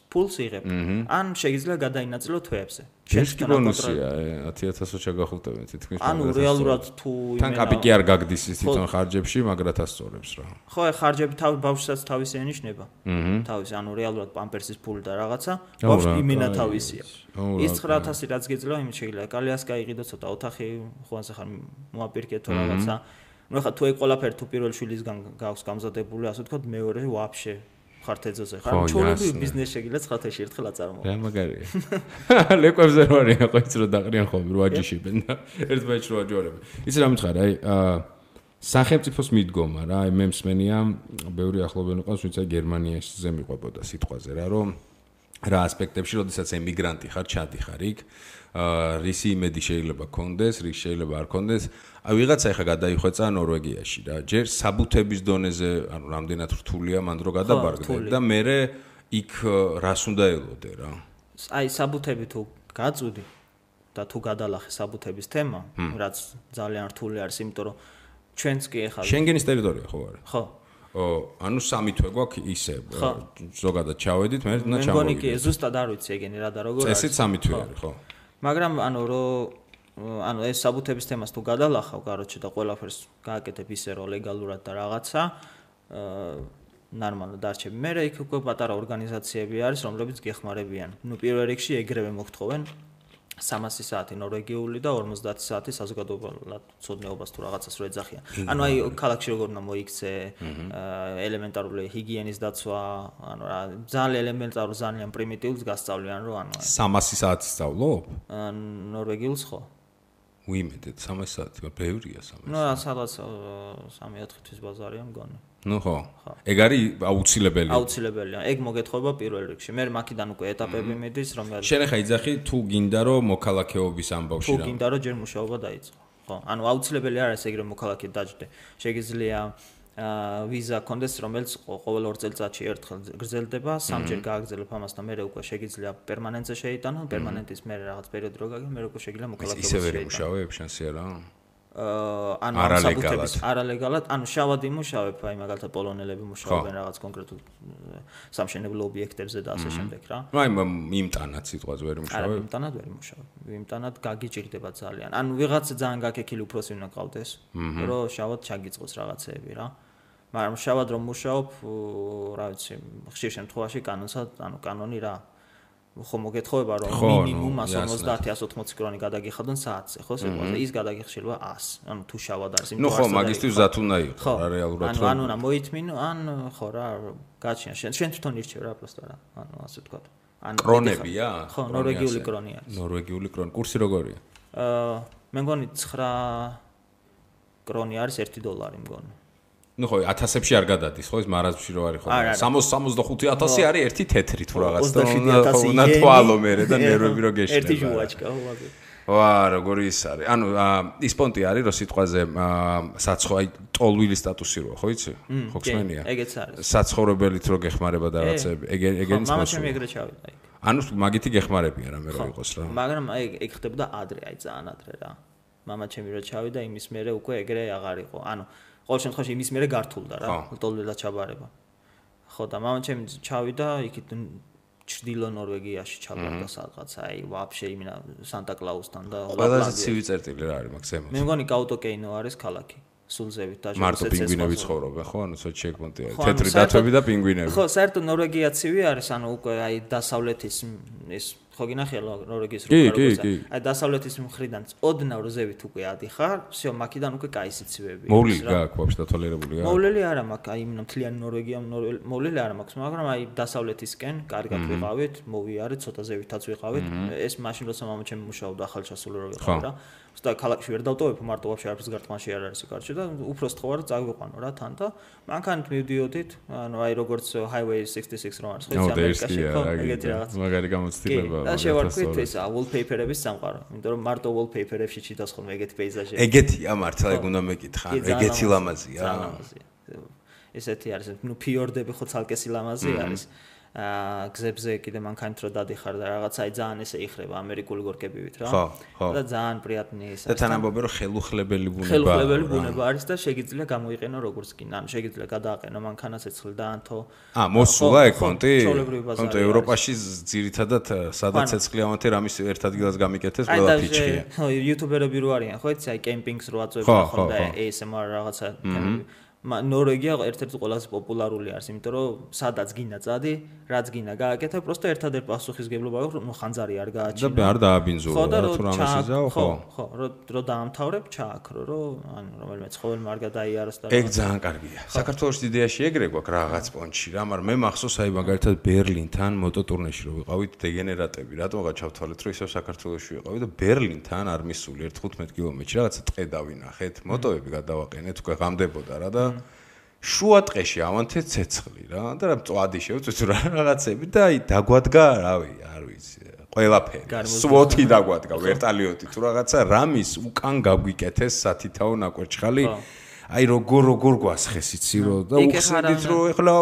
[SPEAKER 3] ფულს იღებ, ან შეგიძლია გადაინაწილო თვეებზე.
[SPEAKER 2] შენს ბონუსია 10000-ო შეგახულტებენ თითქმის.
[SPEAKER 3] რეალურად თუ
[SPEAKER 2] თან კაპიკი არ გაგდის ის თვითონ ხარჯებში, მაგრად ასწორებს რა.
[SPEAKER 3] ხო, ხარჯები ბავშვსაც თავისი ენიშნება. თავისი, რეალურად პამპერსის ფული და რაღაცა, ბავშვი იმენა თავისია. ის 9000 რაც გეძლევა, იმით შეიძლება კალიას გაიყიდო ცოტა ოთახი, ხوانს ახლა მოაპირკეთო რაღაცა. ეხლა თუ ეგ ყველაფერი თუ პირველ შვილისგან გაქვს გამზადებული, ასე ვთქვათ, მეორე ვაფშე ხართეძოზე ხარ. ჩოლები ბიზნეს შეგიძლია 9 თვეში ერთხელ აწარმოო.
[SPEAKER 2] რა მაგარია. ლეკვებზე რო არის, ხო იცი რომ დაყრიან ხოლმე რო აჯიშებენ და ერთ ბაჭს რო აჯორებენ. იცი რა მითხარ, აი სახელმწიფოს მიდგომა რა, აი მე მსმენია, ბევრი ახლობელი ყავს, ვინც აი გერმანიაში მიყვებოდა სიტყვაზე რა, რომ რა ასპექტებში, როდესაც ემიგრანტი ხარ, ჩადიხარ იქ, რისი იმედი შეიძლება გქონდეს, რის შეიძლება არ გქონდეს. აი ვიღაცა ეხა გადაიხვეწა ნორვეგიაში რა. ჯერ საბუთების დონეზე, რამდენად რთულია მან დრო გადაბარგდა და მე იქ რას უნდა ელოდე რა.
[SPEAKER 3] აი საბუთები თუ გაწვდი და თუ გადალახე საბუთების თემა, რაც ძალიან რთული არის, იმიტომ რომ ჩვენც კი ეხლა
[SPEAKER 2] შენგენის ტერიტორია ხო არის?
[SPEAKER 3] ხო.
[SPEAKER 2] სამი თვე გვაქვს ისე ზოგადად ჩავედით, მე უნდა ჩამოვიდეთ.
[SPEAKER 3] მე მგონი კი ზუსტად არ ვიცი ეგენი რა და როგორ არის.
[SPEAKER 2] წესით სამი თვე არის, ხო.
[SPEAKER 3] მაგრამ ეს საბუთების თემას თუ გადალახავ, კაროჩე და ყველაფერს გააკეთებ ისე რომ ლეგალურად და რაღაცა ნორმალურად დარჩები. მე იქ უკვე პატარა ორგანიზაციები არის, რომლებიც გეხმარებიან. პირველ რიგში ეგრევე მოგთხოვენ 300 საათი ნორვეგიული და 50 საათი საზოგადოებრივ ცოდნეობას თუ რაღაცას რო ეძახიან. აი ქალაქში როგორ უნდა მოიქცე, ელემენტარული ჰიგიენის დაცვა, ძალიან ელემენტარულ, ძალიან პრიმიტიულს გასწავლიან, რომ
[SPEAKER 2] 300 საათი სწავლობ?
[SPEAKER 3] ნორვეგიულს ხო.
[SPEAKER 2] უიმედეთ 300 საათი, ბევრია 300.
[SPEAKER 3] სადაც 3-4 თვის ბაზარია მგონი.
[SPEAKER 2] ხო. ეგ არის აუცილებელი.
[SPEAKER 3] აუცილებელია. ეგ მოგეთხოვება პირველ რიგში. მე მაქედან უკვე ეტაპები მიდის, რომელიც
[SPEAKER 2] შენ ახლა იძახი თუ გინდა რომ მოქალაქეობის ამბავში
[SPEAKER 3] რა. თუ გინდა რომ ჯერ მუშაობა დაიწყო. ხო. აუცილებელი არის ეგრე მოქალაქედ დაჯდე. შეგიძლია ვიზა კონდეს, რომელიც ყოველ 2 წელიწადში ერთხელ გრძელდება, 3ჯერ გააგრძელებ ამას და მე უკვე შეგიძლია პერმანენტზე შეიტანო, პერმანენტის მე რაღაც პერიოდი რო გაგე, მე უკვე შეგიძლია მოქალაქეობის
[SPEAKER 2] შეიტანო. ისე ვერ მუშაობ შანსი არა?
[SPEAKER 3] არალეგალად, შავად იმუშავებ, აი მაგალითად პოლონელები მუშაობენ რაღაც კონკრეტულ სამშენებლო ობიექტებზე და ასე შემდეგ რა.
[SPEAKER 2] აი იმტანად სიტყვაზე ვერ მუშაობ?
[SPEAKER 3] არა, იმტანად ვერ მუშაობ. იმტანად გაგიჭირდება ძალიან. ვიღაცა ძალიან გაკექილი უფროსი უნდა ყავდეს, რომ შავად ჩაგიწყოს რაღაცეები რა. მაგრამ შავად რომ მუშაობ, რა ვიცი, ხშირ შემთხვევაში კანონი რა. ხო მოგეთხოვება რომ მინიმუმ 150-180 კრონი გადაგიხადონ საათზე, ხო სიტყვაზე ის გადაგიხშილვა 100. თუ შავად არის იმ
[SPEAKER 2] ხო, მაგისტრის ზათ უნდა იყოს რა რეალურად
[SPEAKER 3] რომ ანუ მოითმინო, ხო რა, გაჩიან შენ თვითონ ირჩევ რა პროსტა რა, ასე ვთქვა.
[SPEAKER 2] კრონებია?
[SPEAKER 3] ხო, ნორვეგიული კრონი არის.
[SPEAKER 2] ნორვეგიული კრონი, კურსი როგორია?
[SPEAKER 3] მე მგონი 9 კრონი არის $1 მგონი.
[SPEAKER 2] ხო, 1000-ებში არ გადადის, ხო, ეს მარაზმში რო არის ხო. 65,000 არის ერთი თეთრი თუ რაღაც და უნდა თვალო მერე და ნერვები რო გეშნება.
[SPEAKER 3] ერთი ჟუვაჩკა, ხო, მაგე.
[SPEAKER 2] ვა, როგორი ის არის. ის პონტი არის, რომ სიტყვაზე საცხო, აი, ტოლვილი სტატუსი როა, ხო იცი? ხო ხსენია?
[SPEAKER 3] ეგეც არის.
[SPEAKER 2] საცხოვრებელით რო გეხმარება და რაღაცები, ეგენის
[SPEAKER 3] მასო. მამაჩემი ეგრე ჩავიდა იქ.
[SPEAKER 2] მაგითი გეხმარებიან რა მე რო იყოს რა.
[SPEAKER 3] მაგრამ ეგ ხდებოდა ადრე, აი ძალიან ადრე რა. მამაჩემი რო ჩავიდა, იმის მერე უკვე ეგრე აღარ იყო. ყოველ შემთხვევაში იმის მერე გართულდა რა, ტოლვილად ჩაბარება. ხო და მამაჩემი ჩავიდა იქით ჩრდილო ნორვეგიაში ჩაბარდა სადღაც აი ვაფშე იმენა სანტა-კლაუსთან და
[SPEAKER 2] ყველაზე ცივი წერტილი რა არის მაგ ზემოთ
[SPEAKER 3] მე მგონი კაუტოკეინო არის ქალაქი სულზევით და
[SPEAKER 2] მარტო პინგვინები ცხოვრობენ ხო ანუ სოჩი ეკმონტი არის თეთრი დათვები და პინგვინები
[SPEAKER 3] ხო საერთოდ ნორვეგია ცივი არის ანუ უკვე აი დასავლეთის ეს ხო გინახია ნორვეგიის როგორია აი დასავლეთის მხრიდან ოდნავ ზევით უკვე ადიხარ всё მაქიდან უკვე კაი სიცივეები
[SPEAKER 2] მოვლილი გააქვს ვაფშე დათვალიერებული
[SPEAKER 3] მოვლილი არა მაქვს აი მთლიანი ნორვეგია მოვლილი არა მაქვს მაგრამ აი დასავლეთისკენ კარგად ვიყავით მოვიარეთ ცოტა ზევითაც ვიყავით ეს მაშინ როცა მამაჩემი მუშაობდა ახალჩასული რო ვიყავ რა უბრალოდ ქალაქში ვერ დავტოვებ მარტო ვაფშე არაფერს გარტყმაში არ არის კარში და უფრო სწხოვარ წაგვიყვანო რა თან და მანქანით მივდიოდით ანუ აი როგორც highway 66 რო არის ხო ის ამერიკაში ხო ეგეთი რაღაც
[SPEAKER 2] მაგარი გამოცდილება
[SPEAKER 3] და შევარქვით ეს wallpaper-ების სამყარო იმიტომ რომ მარტო wallpaper-ებში ჩიტოს ხოლმე ეგეთი პეიზაჟები
[SPEAKER 2] ეგეთია მართლა ეგ უნდა მეკითხა ეგეთი ლამაზია
[SPEAKER 3] ესეთი არის ნუ ფიორდები ხო ცალკე სილამაზი არის გზებზე კიდე მანქანით რო დადიხარ და რაღაცა აი ძალიან ესე იხრება ამერიკული გორკებივით რა და ძალიან პრიატნი ის
[SPEAKER 2] და თანამდებობი რომ ხელუხლებელი ბუნება
[SPEAKER 3] არის და შეგიძლია გამოიყენო როგორც კი ანუ შეგიძლია გადააყენო მანქანას ეცხლ და ანთო
[SPEAKER 2] მოსულა ეგ კონტი კონტი ევროპაში ძირითადად სადაც ეცხლიანთი რამის ერთ ადგილას გამიკეთეს ყველა ფიჩხია
[SPEAKER 3] ხო იუთუბერები რო არიან ხო იცი აი კემპინგს რო აწვევენ ხო და ASMR რაღაცა ნორვეგია ერთ-ერთი ყველაზე პოპულარული არის, იმიტომ რომ სადაც გინდა წადი, რაც გინდა გააკეთე, просто ერთადერთ პასუხისგებლობა აქვს, რომ ხანძარი არ გააჩინო.
[SPEAKER 2] და არ დააბინძურო, თუ რამეს იზაო, ხო.
[SPEAKER 3] ხო, რო დაამთავრებ, ჩააქრო, რომ ანუ რომელიმე ცხოველმა არ გადაიაროს და
[SPEAKER 2] ეგ ძალიან კარგია. საქართველოს იდეაში ეგრე გვაქვს რაღაც პონჩი რა, მაგრამ მე მახსოვს აი მაგალითად ბერლინთან მოტოტურნეში რო ვიყავით დეგენერატები, რატომღა ჩავთვალეთ, რომ ისევ საქართველოში ვიყავით და ბერლინთან არ მისული 1-15 კილომეტრში რაღაცა ტყე დავინახეთ, მოტოები გადავაყენეთ, უკვე ღამდებოდა რა და შუა ტყეში ავანთე ცეცხლი რა და რა მწვადი შევწვით რა რაღაცები და აი დაგვადგა რავი არ ვიცი ყველაფერი სვოთი დაგვადგა ვერტალიოტი თუ რაღაცა რამის უკან გაგვიკეთეს სათითაო ნაკვერჩხალი აი როგორ გვასხეს იცი რო და უხსნით რო ეხლა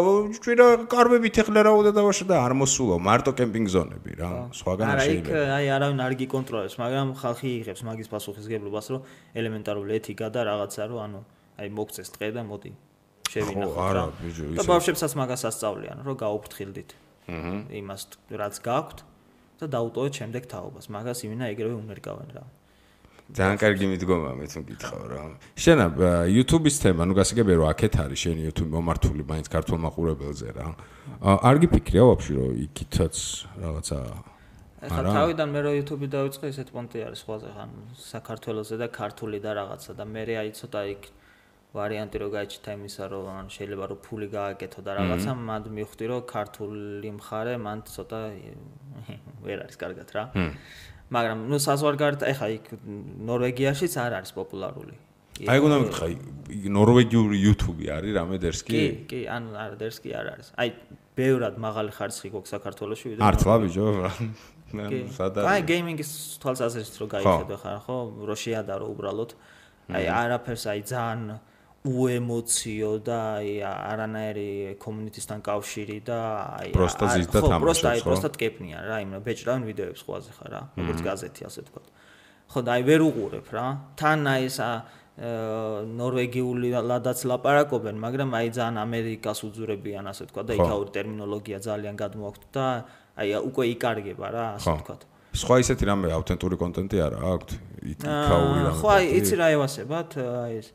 [SPEAKER 2] ჩვენა კარბებით ეხლა რაოდა დავაშა და არ მოსულო მარტო კემპინგ ზონები რა სხვაგან არ შეიძლება
[SPEAKER 3] არა იქ აი არავინ არ გიკონტროლებს მაგრამ ხალხი იღებს მაგის პასუხისგებლობას რომ ელემენტარული ეთიკა და რაღაცა რო ანუ აი მოგწეს ტყე და მოდი შევინახოთ რა და ბავშვებსაც მაგას ასწავლიან რომ გაუფრთხილდით იმას რაც გაქვთ და დაუტოვეთ შემდეგ თაობას მაგას იმენა ეგრევე უნერგავენ რა
[SPEAKER 2] ძალიან კარგი მიდგომა მე თუ გითხავ რა შენა YouTube-ის თემა ნუ გასაგებია რომ აქეთ არის შენი YouTube მომართული მაინც ქართულ მაყურებელზე რა არ გიფიქრია ვაფშე რომ იქითაც რაღაცა
[SPEAKER 3] ახლა თავიდან მე რო YouTube-ი დავიწყე ესეთ პონტი არის სხვაზე ხან საქართველოსზე და ქართული და რაღაცა და მე აი ცოტა იქ ვარიანტი რო გაიჩითა იმისა რომ ან შეიძლება რომ ფული გააკეთო და რაღაცა მანდ მივხვდი რომ ქართული მხარე მანდ ცოტა ვერ არის კარგად რა მაგრამ ნუ საზღვარგარეთ ახლა იქ ნორვეგიაშიც არ არის პოპულარული
[SPEAKER 2] აი გონდა მეკითხა ნორვეგიული YouTube-ი არის რამე დერსკი
[SPEAKER 3] კი ან არ დერსკი არ არის აი ბევრად მაღალი ხარისხი გვაქვს საქართველოში ვიდრე
[SPEAKER 2] მართლა ბიჭო
[SPEAKER 3] აი გეიმინგის თვალსაზრისით რო გაიხედო ხარ ხო რო შეადარო უბრალოდ აი არაფერს აი ძალიან უემოციო და აი არანაირი კომუნიტისთან კავშირი და აი
[SPEAKER 2] პროსტა ზის და თამაშობს ხო?
[SPEAKER 3] პროსტა ტკეპნია რა, იმенно ბეჭდავენ ვიდეოებს ხვაზე ხარ რა, როგორც გაზეთი ასე თქვა. ხო და აი ვერ უყურებ რა. თან აი ეს ნორვეგიული ლადაც ლაპარაკობენ, მაგრამ აი ძალიან ამერიკას უძურებიან ასე თქვა და იქაური ტერმინოლოგია ძალიან გადმოაქვთ და აი უკვე იკარგება რა, ასე თქვა.
[SPEAKER 2] სხვა ისეთი რამე ავთენტური კონტენტი არა აქვთ? იქაური რა.
[SPEAKER 3] ხო აი იცი რა ევასებათ, აი ეს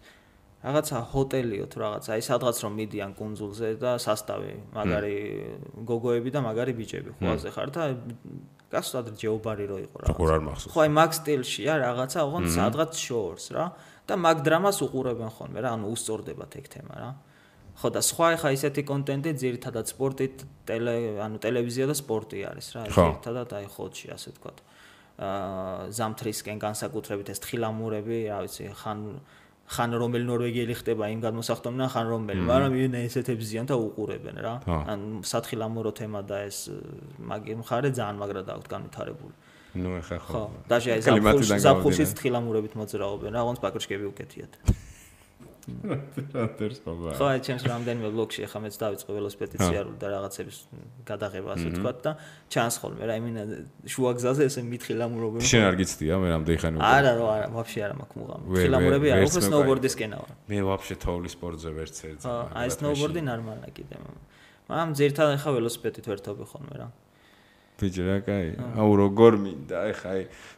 [SPEAKER 3] რაღაცა ჰოტელიო თუ რაღაცა, აი სადღაც რომ მიდიან კუნძულზე და სასტავი, მაგარი გოგოები და მაგარი ბიჭები ხვაზე ხარ და გასულად ჯეობარი რო იყო
[SPEAKER 2] რა. როგორ არ მახსოვს.
[SPEAKER 3] ხო აი მაგ სტილშია რაღაცა, ოღონდ სადღაც შორს რა და მაგ დრამას უყურებენ ხოლმე რა, ანუ უსწორდებათ ეგ თემა რა. ხო და სხვა ხა ისეთი კონტენტი ძირითადად სპორტით, ანუ ტელევიზია და სპორტი არის რა, ძირითადად აი ხოთში ასე ვთქვათ. ზამთრისკენ განსაკუთრებით ეს თხილამურები, რა ვიცი, ხან რომელი ნორვეგიელი ხდება იმ გადმოსახდომიდან, ხან რომელი, მაგრამ იენ ესეთებს ზიან და უყურებენ რა. ან სათხილამურო თემა და ეს მაგი მხარე ძალიან მაგრად აქვს განვითარებული.
[SPEAKER 2] ნუ ეხა
[SPEAKER 3] ხო. და აი ზაფხულშიც თხილამურებით მოძრაობენ რა, ონც პაკრიშკები უკეთიათ. ხო, აი ჩემს რამდენიმე ბლოგში ახლა მეც დავიწყე ველოსიპედიციარული და რაღაცების გადაღება ასე ვთქვათ და ჩანს ხოლმე რა, იმინა შუა გზაზე ესე მითხილამურობენ.
[SPEAKER 2] შენ არ გიცდია მე რამდენი ხანი უკვე?
[SPEAKER 3] არა, ვაფშე არა მაქვს მუღამი. ხილამურები არა, უფრო სნოუბორდის კენაა.
[SPEAKER 2] მე ვაფშე თოვლის სპორტზე ვერც ერთ.
[SPEAKER 3] აი სნოუბორდი ნორმალია კიდე. მაგრამ ძირითადად ხა ველოსიპედით ვერთობი ხოლმე რა.
[SPEAKER 2] ბიჭი რა კაი. აუ როგორ მინდა, ეხა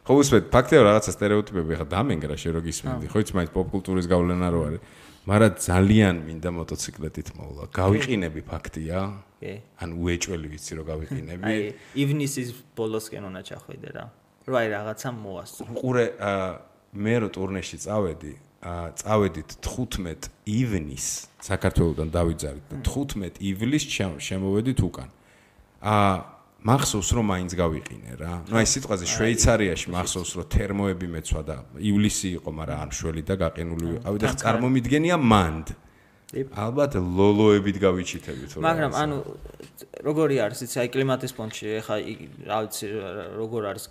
[SPEAKER 2] ხო უსმენთ ფაქტია რაღაცა სტერეოტიპები ეხა დამენგრა შე რო გისმენდი. ხო იცი მაინც პოპკულტურის გავლენა რო არის. მაგრამ ძალიან მინდა მოტოციკლეტით მოვლა. გავიყინები ფაქტია?
[SPEAKER 3] კი.
[SPEAKER 2] ანუ უეჭველი ვიცი რომ გავიყინები.
[SPEAKER 3] აი, ივნისის ბოლოსკენ უნდა ჩახვიდე რა. რომ აი რაღაცა მოასწრო.
[SPEAKER 2] ყურე მე რო ტურნეში წავედით 15 ივნის საქართველოსთან დავიძარით და 15 ივლისს შემოვედით უკან. მახსოვს რომ მაინც გავიყინე რა. ნუ აი სიტყვაზე შვეიცარიაში მახსოვს რომ თერმოები მეცვა და ივლისი იყო, მაგრამ არ შველი და გაყინული ვიყავი და წარმომიდგენია მანდ. ალბათ ლოლოებით გავიჩითებით რა.
[SPEAKER 3] მაგრამ ანუ როგორი არის იცი აი კლიმატის ფონში ეხა რა ვიცი როგორ არის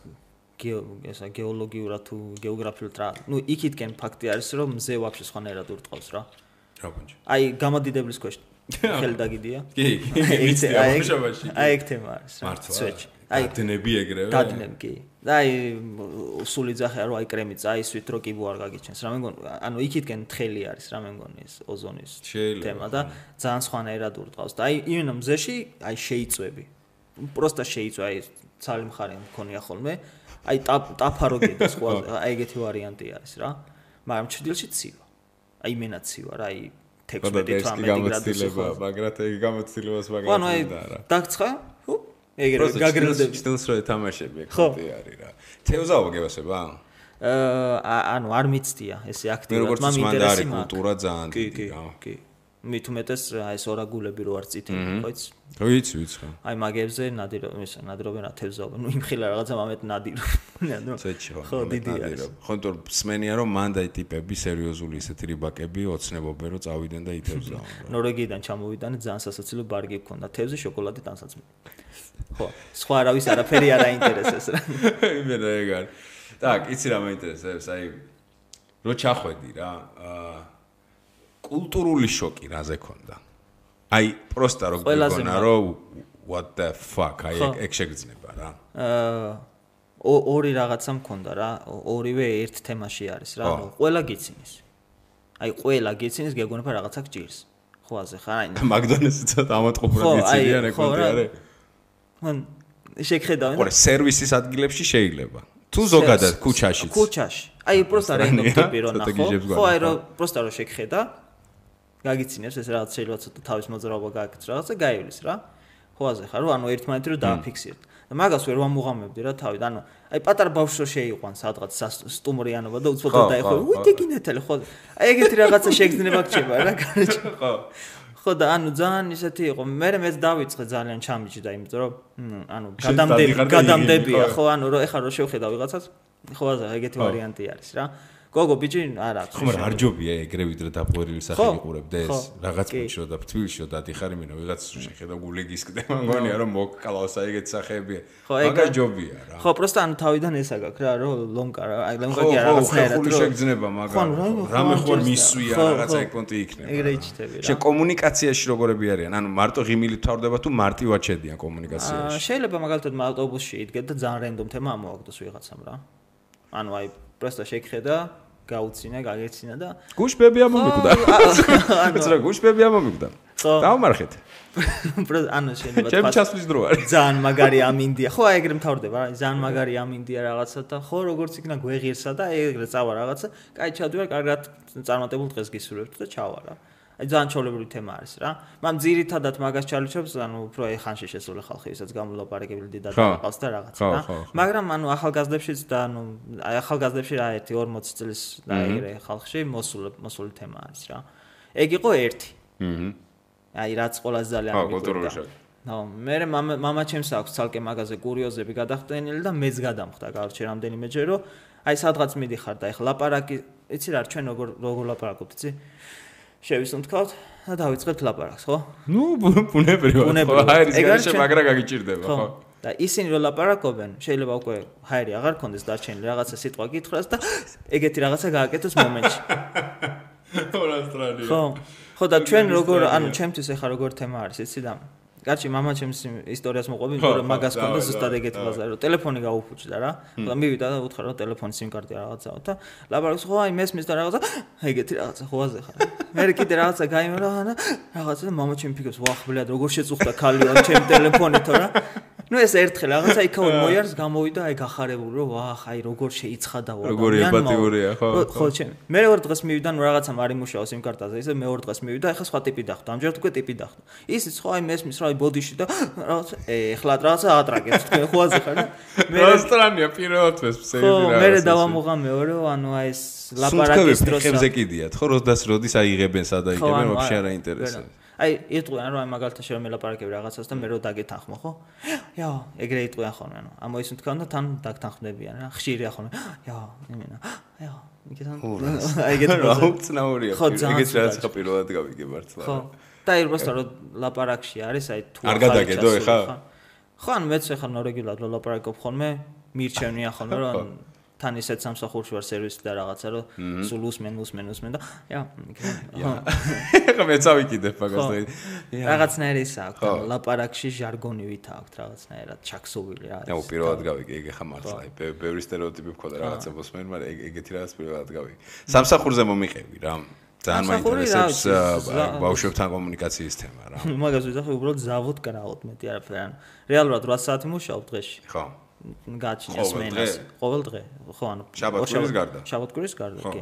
[SPEAKER 3] გეოლოგიურად თუ გეოგრაფიულად რა. ნუ იქითკენ ფაქტი არის რომ მზე ვაფშე სხვანაირად ურტყავს რა.
[SPEAKER 2] რა ბუნჯი.
[SPEAKER 3] აი გამოდიდებლის ქვეშ ხელი დაგიდია.
[SPEAKER 2] კი, ვიცი ამაშობაში.
[SPEAKER 3] აი ეგ თემა არის რა.
[SPEAKER 2] მართლა. აი დადნები ეგრევე.
[SPEAKER 3] დადნები კი. და აი სული ძახია რომ აი კრემიც აისვით რო კიბო არ გაგიჩენს. რა მე მგონი ანუ იქითკენ თხელი არის რა მე მგონი ეს ოზონის თემა და ძალიან სხვანაირად ურტყავს და აი იმენა მზეში აი შეიწვევი. პროსტა შეიწვა აი ცალი მხარე მქონია ხოლმე. აი ტაფარო გიდას ხო აი ეგეთი ვარიანტი არის რა. მაგრამ ჩრდილში ცივა. აი იმენა ცივა რა აი 16-18 გრადუსი.
[SPEAKER 2] მაგრამ ეგ გამოცდილებას მაგალითად არა.
[SPEAKER 3] დაგცხა? ჰუ? ეგრე გაგრილდები.
[SPEAKER 2] ჩრდილს რო ეთამაშები ეგ ხოთი არის რა. თევზაო გევასება?
[SPEAKER 3] ანუ არ მიცდია ესე აქტიურად,
[SPEAKER 2] მაგრამ ინტერესი მაქვს. კულტურა ძალიან დიდი რა.
[SPEAKER 3] კი. მით უმეტეს აი ეს ორაგულები რო არ წითელი, ხო იცი?
[SPEAKER 2] ხო ვიცი ხო.
[SPEAKER 3] აი მაგებზე ნადირობენ რა თევზაობენ. ნუ იმხილა რაღაცა მომეთ ნადირობენ. ხო, დიდი არის.
[SPEAKER 2] ხო, თორ სმენია რომ მანდ აი ტიპები სერიოზული ესეთი რიბაკები ოცნებობენ რომ წავიდნენ და ითევზაო.
[SPEAKER 3] ნორვეგიიდან ჩამოვიდანე ძალიან სასაცილო ბარგი გქონდა. თევზი, შოკოლადი, ტანსაცმელი. ხო, სხვა არავის არაფერი არ აინტერესებს რა.
[SPEAKER 2] იმენა ეგ არის. так, იცი რა მაინტერესებს, აი რო ჩახვედი რა, კულტურული შოკი რაზე ქონდა. აი, პროსტა რო გიგონა რომ what the fuck, აი ეგ შეგრძნება რა.
[SPEAKER 3] ორი რაღაცა მქონდა რა, ორივე ერთ თემაში არის რა, ანუ ყველა გიცინის. აი, ყველა გიცინის გეგონება რაღაცა გჭირს. ხო, აზე ხარ აი.
[SPEAKER 2] მაგდონალდსი ცოტა ამატყუბრად გიცინიან ეკონტი არის.
[SPEAKER 3] მან შეგხედავენ.
[SPEAKER 2] ხო, სერვისის ადგილებში შეიძლება. თუ ზოგადად ქუჩაშიც.
[SPEAKER 3] ქუჩაში. აი, პროსტა რენდომ ტიპი რო ნახო. ხო, აი რო პროსტა რო შეგხედა გაგიცინებს ეს რაღაც შეიძლება ცოტა თავის მოძრაობა გააკეთოს რაღაცა გაივლის რა. ხო აზე ხარ რომ ანუ ერთმანეთი რო დააფიქსირდ. და მაგას ვერ ვამუღამებდი რა თავი. ანუ აი პატარა ბავშვი რო შეიყვან სადღაც სტუმრიანობა და უცბად დაიხო. უიტეკინეთელი ხო. აი ეგეთი რაღაცა შეგრძნება გჭირდება რა გარეთ.
[SPEAKER 2] ხო.
[SPEAKER 3] ხო და ანუ ძალიან ისეთი იყო. მე მეც დავიწყე ძალიან ჩამიჭდა იმიტომ რომ ანუ გადამდებია ხო ანუ რო ეხლა რო შევხედა ვიღაცას ხო აზე ეგეთი ვარიანტი არის რა. გოგო ბიჭი არა აქვს.
[SPEAKER 2] ხო, მაგრამ არ ჯობია ეგრე ვიდრე დაპყრობილი სახე იყურებდე ეს. რაღაც პუნჩო და თბილისში დადიხარ იმენა ვიღაც შეხედა გულეგის კდება მგონია რომ მოკკლავს აი ეგეთ სახეებია. მაგა ჯობია რა.
[SPEAKER 3] ხო, პროსტა ანუ თავიდან ეს აგაკ რა რომ ლონკა რა აი ლონკა კი რაღაცნაირად
[SPEAKER 2] რომ შეგძნება მაგა. რამე ხوار მისვია რაღაცა ეკონტი იქნება.
[SPEAKER 3] ეგრე იჩიტები რა.
[SPEAKER 2] შე კომუნიკაციაში როგორები არიან? ანუ მარტო ღიმილით თავდება თუ მარტივად შედიან კომუნიკაციაში?
[SPEAKER 3] შეიძლება მაგალითად ავტობუსში იდგეთ და ძალიან რენდომ თემა ამოაგდოს ვიღაცამ რა. ანუ აი პროსტა შეგხედა გაუცინა, გაგეცინა და
[SPEAKER 2] გუშბები ამომიკვდა. ანუ რა გუშბები ამომიკვდა. დავმარხეთ.
[SPEAKER 3] ანუ შეიძლება
[SPEAKER 2] თქვა. ჩემ ჩასვლის დრო არის.
[SPEAKER 3] ძალიან მაგარი ამინდია. ხო, აი ეგრე მთავრდება რა. ძალიან მაგარი ამინდია რაღაცა და ხო როგორც იქნა გვეღირსა და ეგრე წავა რაღაცა. კაი ჩავდივარ, კარგად წარმატებულ დღეს გისურვებთ და ჩავა რა. აი ძალიან ჩაოლებრივი თემა არის რა. მაგრამ ძირითადად მაგას ჩალიჩობს, ანუ უფრო აი ხანში შესული ხალხი, ვისაც გამოლაპარაკებელი დიდად აყავს და რაღაცა რა. მაგრამ ანუ ახალგაზრდებშიც და ანუ აი ახალგაზრდებში რა 1-40 წლის და ეგრე ხალხში მოსული თემა არის რა. ეგ იყო ერთი. აი რაც ყველაზე ძალიან
[SPEAKER 2] მიგყვება.
[SPEAKER 3] ნო, მე მამა ჩემს აქვს ცალკე მაგაზე კურიოზები გადახდენილი და მეც გადამხდა გავარჩე რამდენიმეჯერ რომ აი სადღაც მიდიხარ და ეხლა ლაპარაკი, იცი რა ჩვენ როგორ ლაპარაკობთ, იცი? შევისუნთქავთ და დავიწყებთ ლაპარაკს, ხო?
[SPEAKER 2] ნუ ბუნებრივად. ხო, ჰაერის გარეშე მაგრა გაგიჭირდება, ხო?
[SPEAKER 3] და ისინი რო ლაპარაკობენ, შეიძლება უკვე ჰაერი აღარ კონდეს დარჩენილი რაღაცა სიტყვა გითხრას და ეგეთი რაღაცა გააკეთოს მომენტში.
[SPEAKER 2] ორასტრალია.
[SPEAKER 3] ხო. ხო და ჩვენ როგორ ანუ ჩემთვის ეხა როგორ თემა არის, იცი და კაცი მამა ჩემს ისტორიას მოყვები, იმიტომ რომ მაგას კონდა ზუსტად ეგეთი ბაზარი, რომ ტელეფონი გაუფუჭდა რა. და მივიდა და უთხრა რომ ტელეფონის SIM კარტი რაღაცაა და ლაპარაკს ხო აი მესმის და რაღაცა ეგეთი რაღაცა ხოაზე ხარ. მე კიდე რაღაცა გაიმარა და რაღაცა და მამა ჩემი ფიქრობს, ვახ ბლად როგორ შეწუხდა ხალიო ჩემ ტელეფონითო რა. ნუ ეს ერთხელ რაღაცა იქაურ მოიარს გამოვიდა აი გახარებული რომ ვახ აი როგორ შეიცხადა ვარ.
[SPEAKER 2] როგორი ემპათიურია ხო.
[SPEAKER 3] ხო ჩემ. მე მეორე დღეს მივიდა ნუ რაღაცა მარი მუშაობს SIM კარტაზე ისე მეორე დღეს მივიდა ეხლა სხვა ტიპი დახვდა. ამჯერად უკვე ტიპი დახვდა. ისიც ხო აი მესმის რა აი ბოდიში და რაღაცა ეხლა რაღაცა ატრაკებს თქვენ ხოაზე ხარ და
[SPEAKER 2] მე რესტორანია პირველად მესმის ეგეთი რაღაცა.
[SPEAKER 3] მე დავამოღა მეორე ანუ აი ეს ლაპარაკის დროს
[SPEAKER 2] ხებზე კიდიათ ხო როდის აიღებენ სადა იგებენ ვაფშე არ აინტერესებს.
[SPEAKER 3] აი იტყვიან რომ აი მაგალითად შე რომ ელაპარაკები რაღაცას და მე რო დაგეთანხმო ხო? იო, ეგრე იტყვიან ხოლმე ანუ ამოისუნ თქვენ და თან დაგთანხმდებიან რა. ხშირია ხოლმე. იო, იმენა. იო, მიგეთან. აი ეგეთი
[SPEAKER 2] აუცნაურია. ეგეთი რაც ხო პირველად გავიგე მართლა.
[SPEAKER 3] ხო. და ირბასთან რომ ლაპარაკში არის აი თუ
[SPEAKER 2] არ გადაგედო ეხა?
[SPEAKER 3] ხო, ანუ მეც ეხა ნორეგულად ლაპარაკობ ხოლმე, მირჩევნია ხოლმე რომ თან ისეთ სამსახურში ვარ სერვისი და რაღაცა რომ სულ უსმენ და ია
[SPEAKER 2] ეხა მეც ავიკიდებ მაგას და
[SPEAKER 3] რაღაცნაირი ის აქვს ლაპარაკში ჟარგონივით აქვს რაღაცნაირად ჩაქსოვილი რა
[SPEAKER 2] ნუ პირველად გავიგე ეგ ეხა მართლა ბევრი სტერეოტიპი მქონდა რაღაცა მოსმენ მაგრამ ეგეთი რაღაც პირველად გავიგე სამსახურზე მომიყევი რა ძალიან მაინტერესებს ბავშვებთან კომუნიკაციის თემა რა
[SPEAKER 3] მაგას ვიზახი უბრალოდ ზავოდ კრავოთ მეტი არაფერი ან რეალურად 8 საათი მუშაობ დღეში
[SPEAKER 2] ხო
[SPEAKER 3] გაჩნია სმენას ყოველ დღე ხო ანუ შაბათ-კვირის გარდა კი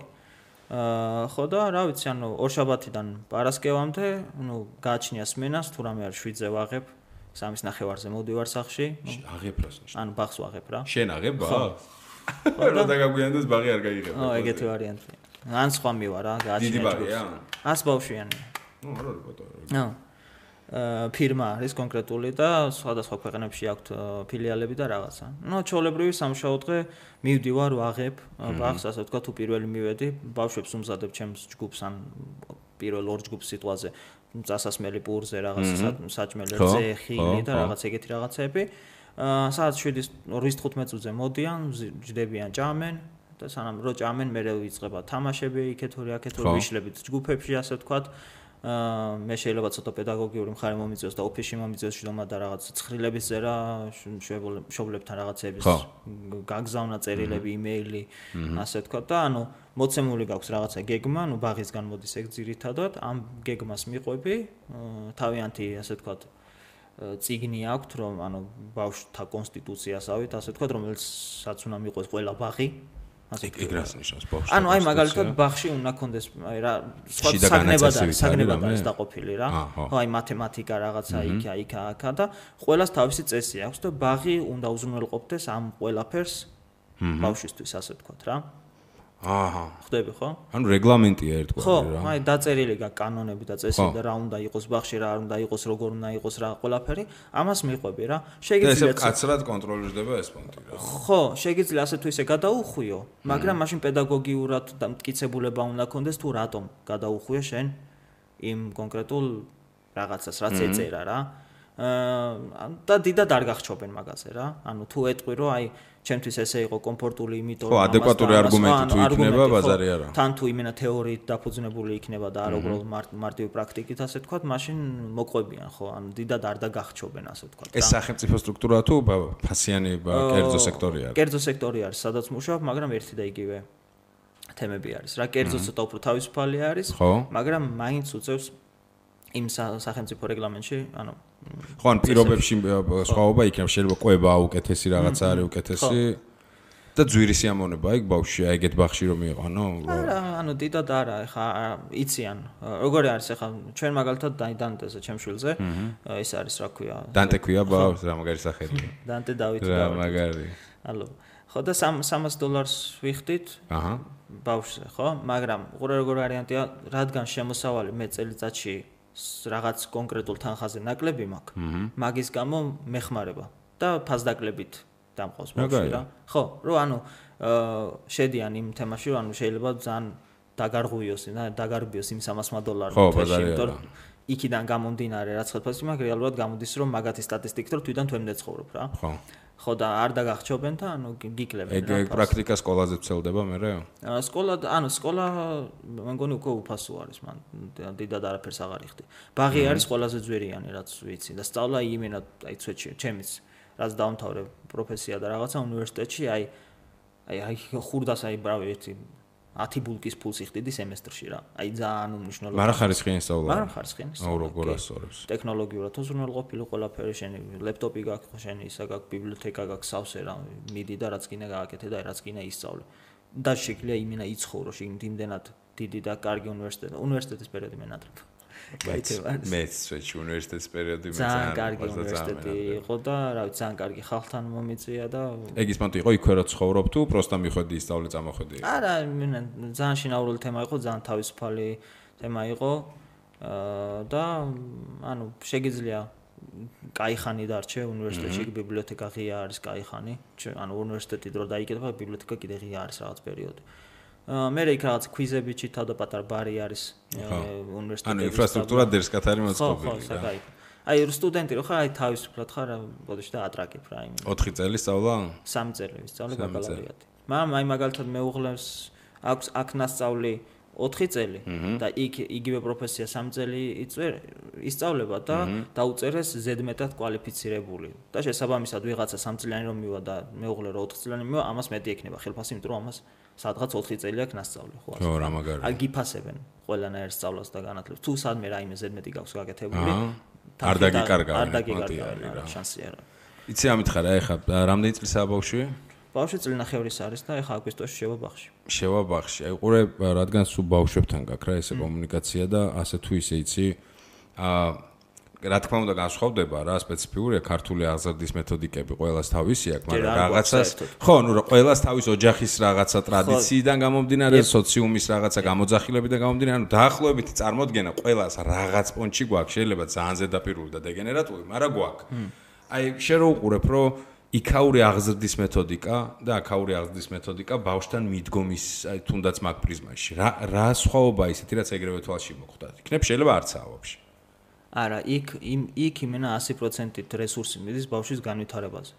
[SPEAKER 3] ხო და რა ვიცი ანუ ორშაბათიდან პარასკევამდე ნუ გაჩნია სმენას თუ რამე არის 7-ზე ვაღებ 3:30-ზე მოვდივარ სახლში
[SPEAKER 2] აღებ რას
[SPEAKER 3] ანუ ბაღს ვაღებ რა
[SPEAKER 2] შენ აღებ ბაღს რა დაგაგვიანდეს ბაღი არ გაიღებ
[SPEAKER 3] ო ეგეთი ვარიანტია ან სხვა მივა რა გაჩნია
[SPEAKER 2] დიდი ბაღია
[SPEAKER 3] 100 ბავშვიანი
[SPEAKER 2] ნუ არ არის ბატონო
[SPEAKER 3] ნო ფირმა არის კონკრეტული და სხვადასხვა ქვეყნებში აქვთ ფილიალები და რაღაცა. ნუ ჩაოლებრივი სამუშაო დღე მივდივარ ვაღებ ბაღს, ასე ვთქვათ, თუ პირველი მივედი, ბავშვებს უმზადებ ჩემს ჯგუფს ან პირველ ორ ჯგუფს სიტყვაზე, წასასმელი პურზე რაღაცა საჭმელი რძე, ხილი და რაღაც ეგეთი რაღაცები. საათ 7:45 წუთზე მოდიან, ჯდებიან, ჭამენ და სანამ რო ჭამენ, მე ვიწყება თამაშები, იქეთური, აქეთური ვიშლებით ჯგუფებში, ასე ვთქვათ. მე შეიძლება ცოტა პედაგოგიური მხარე მომიწევს და ოფისში მომიწევს შრომა და რაღაც ცხრილების წერა მშობლებთან რაღაცების გაგზავნა წერილები, იმეილი, ასე ვთქვათ და ანუ მოცემული გაქვს რაღაცა გეგმა, ანუ ბაღისგან მოდის ეგ ძირითადად, ამ გეგმას მიყვები, თავიანთი ასე ვთქვათ წიგნი აქვთ, რომ ანუ ბავშვთა კონსტიტუციასავით, ასე ვთქვათ, რომელსაც უნდა მიყვეს ყველა ბაღი
[SPEAKER 2] ეგ რას ნიშნავს ბავშვი?
[SPEAKER 3] ანუ აი მაგალითად ბაღში უნდა კონდეს აი რა სხვა საგნებად არის დაყოფილი რა. ხო აი მათემატიკა რაღაცა იქ აქა და ყველას თავისი წესი აქვს და ბაღი უნდა უზრუნველყოფდეს ამ ყველაფერს ბავშვისთვის ასე ვთქვათ რა.
[SPEAKER 2] აჰა.
[SPEAKER 3] ხდები ხო?
[SPEAKER 2] ანუ რეგლამენტია ერთგვარი
[SPEAKER 3] ხო,
[SPEAKER 2] რა.
[SPEAKER 3] აი დაწერილი გაქვს კანონები და წესები და რა უნდა იყოს ბაღში, რა არ უნდა იყოს, როგორ უნდა იყოს რა ყველაფერი, ამას მიყვები რა.
[SPEAKER 2] შეგიძლიათ კაცრად კონტროლირდება ეს პონტი რა.
[SPEAKER 3] ხო, შეგიძლია ასე თუ ისე გადაუხვიო, მაგრამ მაშინ პედაგოგიურად და მტკიცებულება უნდა კონდეს თუ რატომ გადაუხვიო შენ იმ კონკრეტულ რაღაცას, რაც ეწერა რა. და დიდად არ გახჩობენ მაგაზე რა. ანუ თუ ეტყვი რომ აი ჩემთვის ესე იყო კომფორტული იმიტომ
[SPEAKER 2] რომ ხო ადეკვატური არგუმენტი თუ იქნება ბაზარი არა.
[SPEAKER 3] თან თუ იმენა თეორიით დაფუძნებული იქნება და არ უბრალოდ მარტივი პრაქტიკით ასე ვთქვათ, მაშინ მოყვებიან ხო, ანუ დიდად არ დაგახჩობენ ასე ვთქვათ.
[SPEAKER 2] ეს სახელმწიფო სტრუქტურაა თუ ფასიანი კერძო სექტორი არის?
[SPEAKER 3] კერძო სექტორი არის, სადაც მუშაობ, მაგრამ ერთი და იგივე თემები არის. რა კერძო ცოტა უფრო თავისუფალი არის, მაგრამ მაინც უწევს იმ სახელმწიფო რეგლამენტში, ანუ
[SPEAKER 2] ხო ან პირობებში სხვაობა იქნება, შეიძლება ყვება უკეთესი რაღაცა არის უკეთესი და ძვირი სიამოვნება იქ ბავშვი ეგეთ ბაღში რომ მიყანო?
[SPEAKER 3] არა, ანუ დიდად არა, ეხა იციან. როგორი არის ეხა ჩვენ მაგალითად დანტეზე ჩემ შვილზე, ის არის რა ქვია?
[SPEAKER 2] დანტე ქვია ბავშვს, რა მაგარი სახელია.
[SPEAKER 3] დანტე დავითი
[SPEAKER 2] რა მაგარი.
[SPEAKER 3] ალო. ხო და $300 ვიხდით. აჰა. ბავშვზე, ხო? მაგრამ როგორ ვარიანტია, რადგან შემოსავალი მე წელიწადში რაღაც კონკრეტულ თანხაზე ნაკლები მაქვს. მაგის გამო მეხმარება და ფასდაკლებით დამყავს ბავშვი რა. ხო, რომ ანუ შედიან იმ თემაში, რომ ანუ შეიძლება ძალიან დაგარღვიოს იმ $300
[SPEAKER 2] ხო, ბაზარი არა.
[SPEAKER 3] იქიდან გამომდინარე რაც ხელფასი მაგ რეალურად გამოდის რომ მაგათი სტატისტიკით რომ თვითონ თვემდე ცხოვრობ რა. ხო და არ დაგახჩობენ და გიკლებენ
[SPEAKER 2] რა. ეგ პრაქტიკა სკოლაზე ვცელდება მერე?
[SPEAKER 3] სკოლა მე მგონი უკვე უფასო არის მან დიდად არაფერს აღარ იხდი. ბაღი არის ყველაზე ძვირიანი რაც ვიცი და სწავლა იმენად აი ცვეთში ჩემის რაც დაამთავრე პროფესია და რაღაცა უნივერსიტეტში აი ხურდას აი ბრავი ერთი 10 ბულკის ფულს იხდიდი სემესტრში რა. აი ძალიან უმნიშვნელო.
[SPEAKER 2] მაგრამ ხარისხიანი სწავლა.
[SPEAKER 3] მაგრამ ხარისხიანი სწავლა.
[SPEAKER 2] როგორ ასწავლებს?
[SPEAKER 3] ტექნოლოგიურად უზრუნველყოფილი ყველაფერი შენი ლეპტოპი გაქვს შენი ისა გაქვს ბიბლიოთეკა გაქვს სავსე რა მიდი და რაც გინდა გააკეთე და რაც გინდა ისწავლე. და შეგვიძლია იმენა იცხოვრო იმდენად დიდი და კარგი უნივერსიტეტის პერიოდი მე ნატრებ.
[SPEAKER 2] მეც სვეჩი უნივერსიტეტის პერიოდი მე
[SPEAKER 3] ძალიან კარგი უნივერსიტეტი იყო და რა ვიცი ძალიან კარგი ხალხთან მომიწია და
[SPEAKER 2] ეგ ის მანდ იყო იქვე რა ცხოვრობ თუ პროსტა მიხვედი ისწავლე წამოხვედი
[SPEAKER 3] არა ძალიან შინაურული თემა იყო ძალიან თავისუფალი თემა იყო და ანუ შეგიძლია კაი ხანი დარჩე უნივერსიტეტში ბიბლიოთეკა ღია არის კაი ხანი ანუ უნივერსიტეტი დრო დაიკეთება ბიბლიოთეკა კიდე ღია არის რაღაც პერიოდი მე იქ რაღაც ქვიზები ჩითავ და პატარ ბარი არის უნივერსიტეტში.
[SPEAKER 2] ანუ ინფრასტრუქტურა დერსკათარი მოწყობილი.
[SPEAKER 3] აი სტუდენტი რო ხარ, აი თავისუფლად ხარ, ბოდიში და ატრაკებ რა იმ.
[SPEAKER 2] 4 წელი სწავლა?
[SPEAKER 3] 3 წელი ვისწავლე ბაკალავრიატი. მაგრამ აი მაგალითად მეუღლეს აქვს აქ ნასწავლი 4 წელი და იგივე პროფესია 3 წელი ისწავლება და დაუწერეს ზედმეტად კვალიფიცირებული. და შესაბამისად ვიღაცა 3 წლიანი რომ მივა და მეუღლე რო 4 წლიანი მივა, ამას მეტი ექნება ხელფასი, იმიტომ რომ ამას სადღაც 4 წელი აქვს ნასწავლი, ხო?
[SPEAKER 2] ხო, რა მაგარი.
[SPEAKER 3] აი გიფასებენ ყველანაირ სწავლას და განათლებას. თუ სადმე რაიმე ზედმეტი გაქვს გაკეთებული,
[SPEAKER 2] არ დაგიკარგავენ.
[SPEAKER 3] არ დაგიკარგავენ რა, შანსი არა.
[SPEAKER 2] იცი ამით ხარ, ეხა რამდენი წლისაა ბავშვი?
[SPEAKER 3] ბავშვი წლინახევრის არის და ეხა აგვისტოში შევა ბაღში.
[SPEAKER 2] შევა ბაღში. აი ყურე, რადგან სულ ბავშვებთან გაქვს რა ესე კომუნიკაცია და ასე თუ ისე იცი, რა თქმა უნდა განსხვავდება რა სპეციფიურია ქართული აღზრდის მეთოდიკები ყველას თავისი აქვს, მაგრამ რაღაცას ხო, ნუ ყველას თავის ოჯახის რაღაცა ტრადიციიდან გამომდინარე, სოციუმის რაღაცა გამოძახილებიდან გამომდინარე, ანუ დაახლოებით წარმოდგენა ყველას რაღაც პონჩი გვაქვს, შეიძლება ძალიან ზედაპირული და დეგენერატული, მაგრამ გვაქვს. აი შენ რო უყურებ, რომ იქაური აღზრდის მეთოდიკა და აქაური აღზრდის მეთოდიკა ბავშვთან მიდგომის, აი თუნდაც მაგ პრიზმაში. რა სხვაობა ისეთი რაც ეგრევე თვალში მოხვდათ. იქნებ შეიძლება არცაა ვაფშე.
[SPEAKER 3] არა, იქ იმენა 100%-ით რესურსი მიდის ბავშვის განვითარებაზე,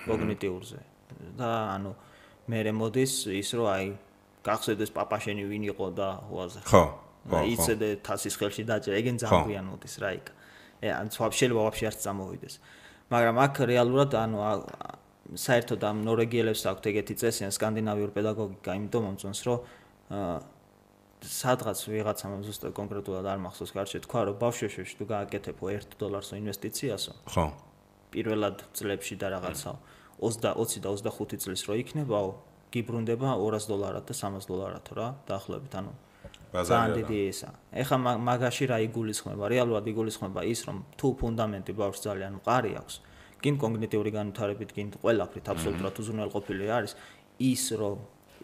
[SPEAKER 3] კოგნიტიურზე. და ანუ მე მოდის ის რომ აი გახსოვდეს პაპა შენი ვინ იყო და უაზე.
[SPEAKER 2] ხო.
[SPEAKER 3] იცოდე თასის ხელში დაჭერა, ეგენ ძალიან მოდის რა იქ. ან შეიძლება ვაფშე არც წამოვიდეს. მაგრამ აქ რეალურად ანუ საერთოდ ამ ნორვეგიელებს აქვთ ეგეთი წესი, ან სკანდინავიური პედაგოგიკა, იმიტომ მომწონს რომ სადღაც ვიღაცამ ზუსტად კონკრეტულად არ მახსოვს გარშე თქვა რომ ბავშვებში თუ გააკეთებო $1 ინვესტიციასო ხო პირველად წლებში და რაღაცა 20 და 25 წლის რო იქნებაო გიბრუნდება $200 და $300 რა დაახლოებით ანუ ძალიან დიდი ისა ეხა მაგაში რა იგულისხმება რეალურად იგულისხმება ის რომ თუ ფუნდამენტი ბავშვს ძალიან მყარი აქვს კინ კოგნიტიური განვითარებით კინ ყველაფრით აბსოლუტურად უზრუნველყოფილი არის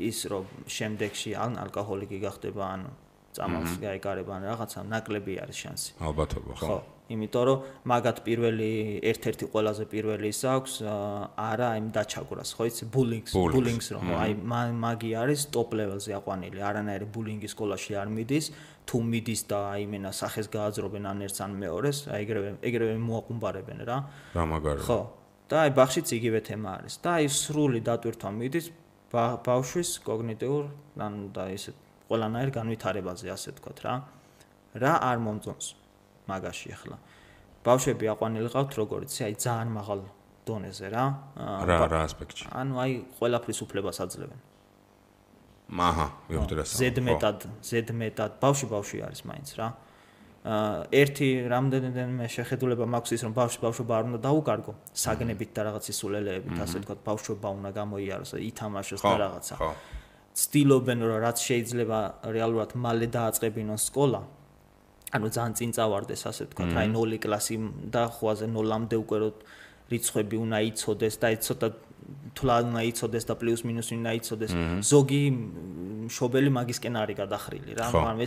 [SPEAKER 3] ის რომ შემდეგში ან ალკოჰოლიკი გახდება ან წამალს გაეკარება ან რაღაცა ნაკლები არის შანსი.
[SPEAKER 2] ალბათობა ხო.
[SPEAKER 3] იმიტომ რომ მაგათ პირველი ერთ-ერთი ყველაზე პირველი ის აქვს არა იმ დაჩაგვრას ხო იცი ბულინგს რომ აი მაგი არის ტოპ ლეველზე აყვანილი არანაირი ბულინგი სკოლაში არ მიდის თუ მიდის და აი მენა სახეს გააძრობენ ან ერთს ან მეორეს აი ეგრევე მოაყუმბარებენ რა.
[SPEAKER 2] რა მაგარი.
[SPEAKER 3] ხო. და აი ბაღშიც იგივე თემა არის და აი სრული დატვირთვა მიდის ბავშვის კოგნიტიურ ან და ისე ყველანაირ განვითარებაზე ასე ვთქვათ რა არ მომწონს მაგაში ახლა ბავშვები აყვანილი ყავთ როგორიც აი ძალიან მაღალ დონეზე რა
[SPEAKER 2] ასპექტში
[SPEAKER 3] ანუ აი ყველაფრის უფლებას აძლევენ
[SPEAKER 2] აჰა ვიხდი რა
[SPEAKER 3] ზედმეტად ბავშვი არის მაინც რა ერთი რამდენიმე შეხედულება მაქვს ის რომ ბავშვობა არ უნდა დაუკარგო საგნებით და რაღაც ისულელეებით ასე ვთქვათ ბავშვობა უნდა გამოიაროს ითამაშოს და რაღაცა ცდილობენ რომ რაც შეიძლება რეალურად მალე დააწყებინონ სკოლა ანუ ძალიან წინ წავარდეს ასე ვთქვათ აი 0 კლასი და ხوازე 0-მდე უკვე რიცხვები უნდა იცოდეს და ცოტა თვლა უნდა იცოდეს და პლუს მინუს უნდა იცოდეს ზოგი მშობელი მაგისკენ არის გადახრილი რა მაგრამ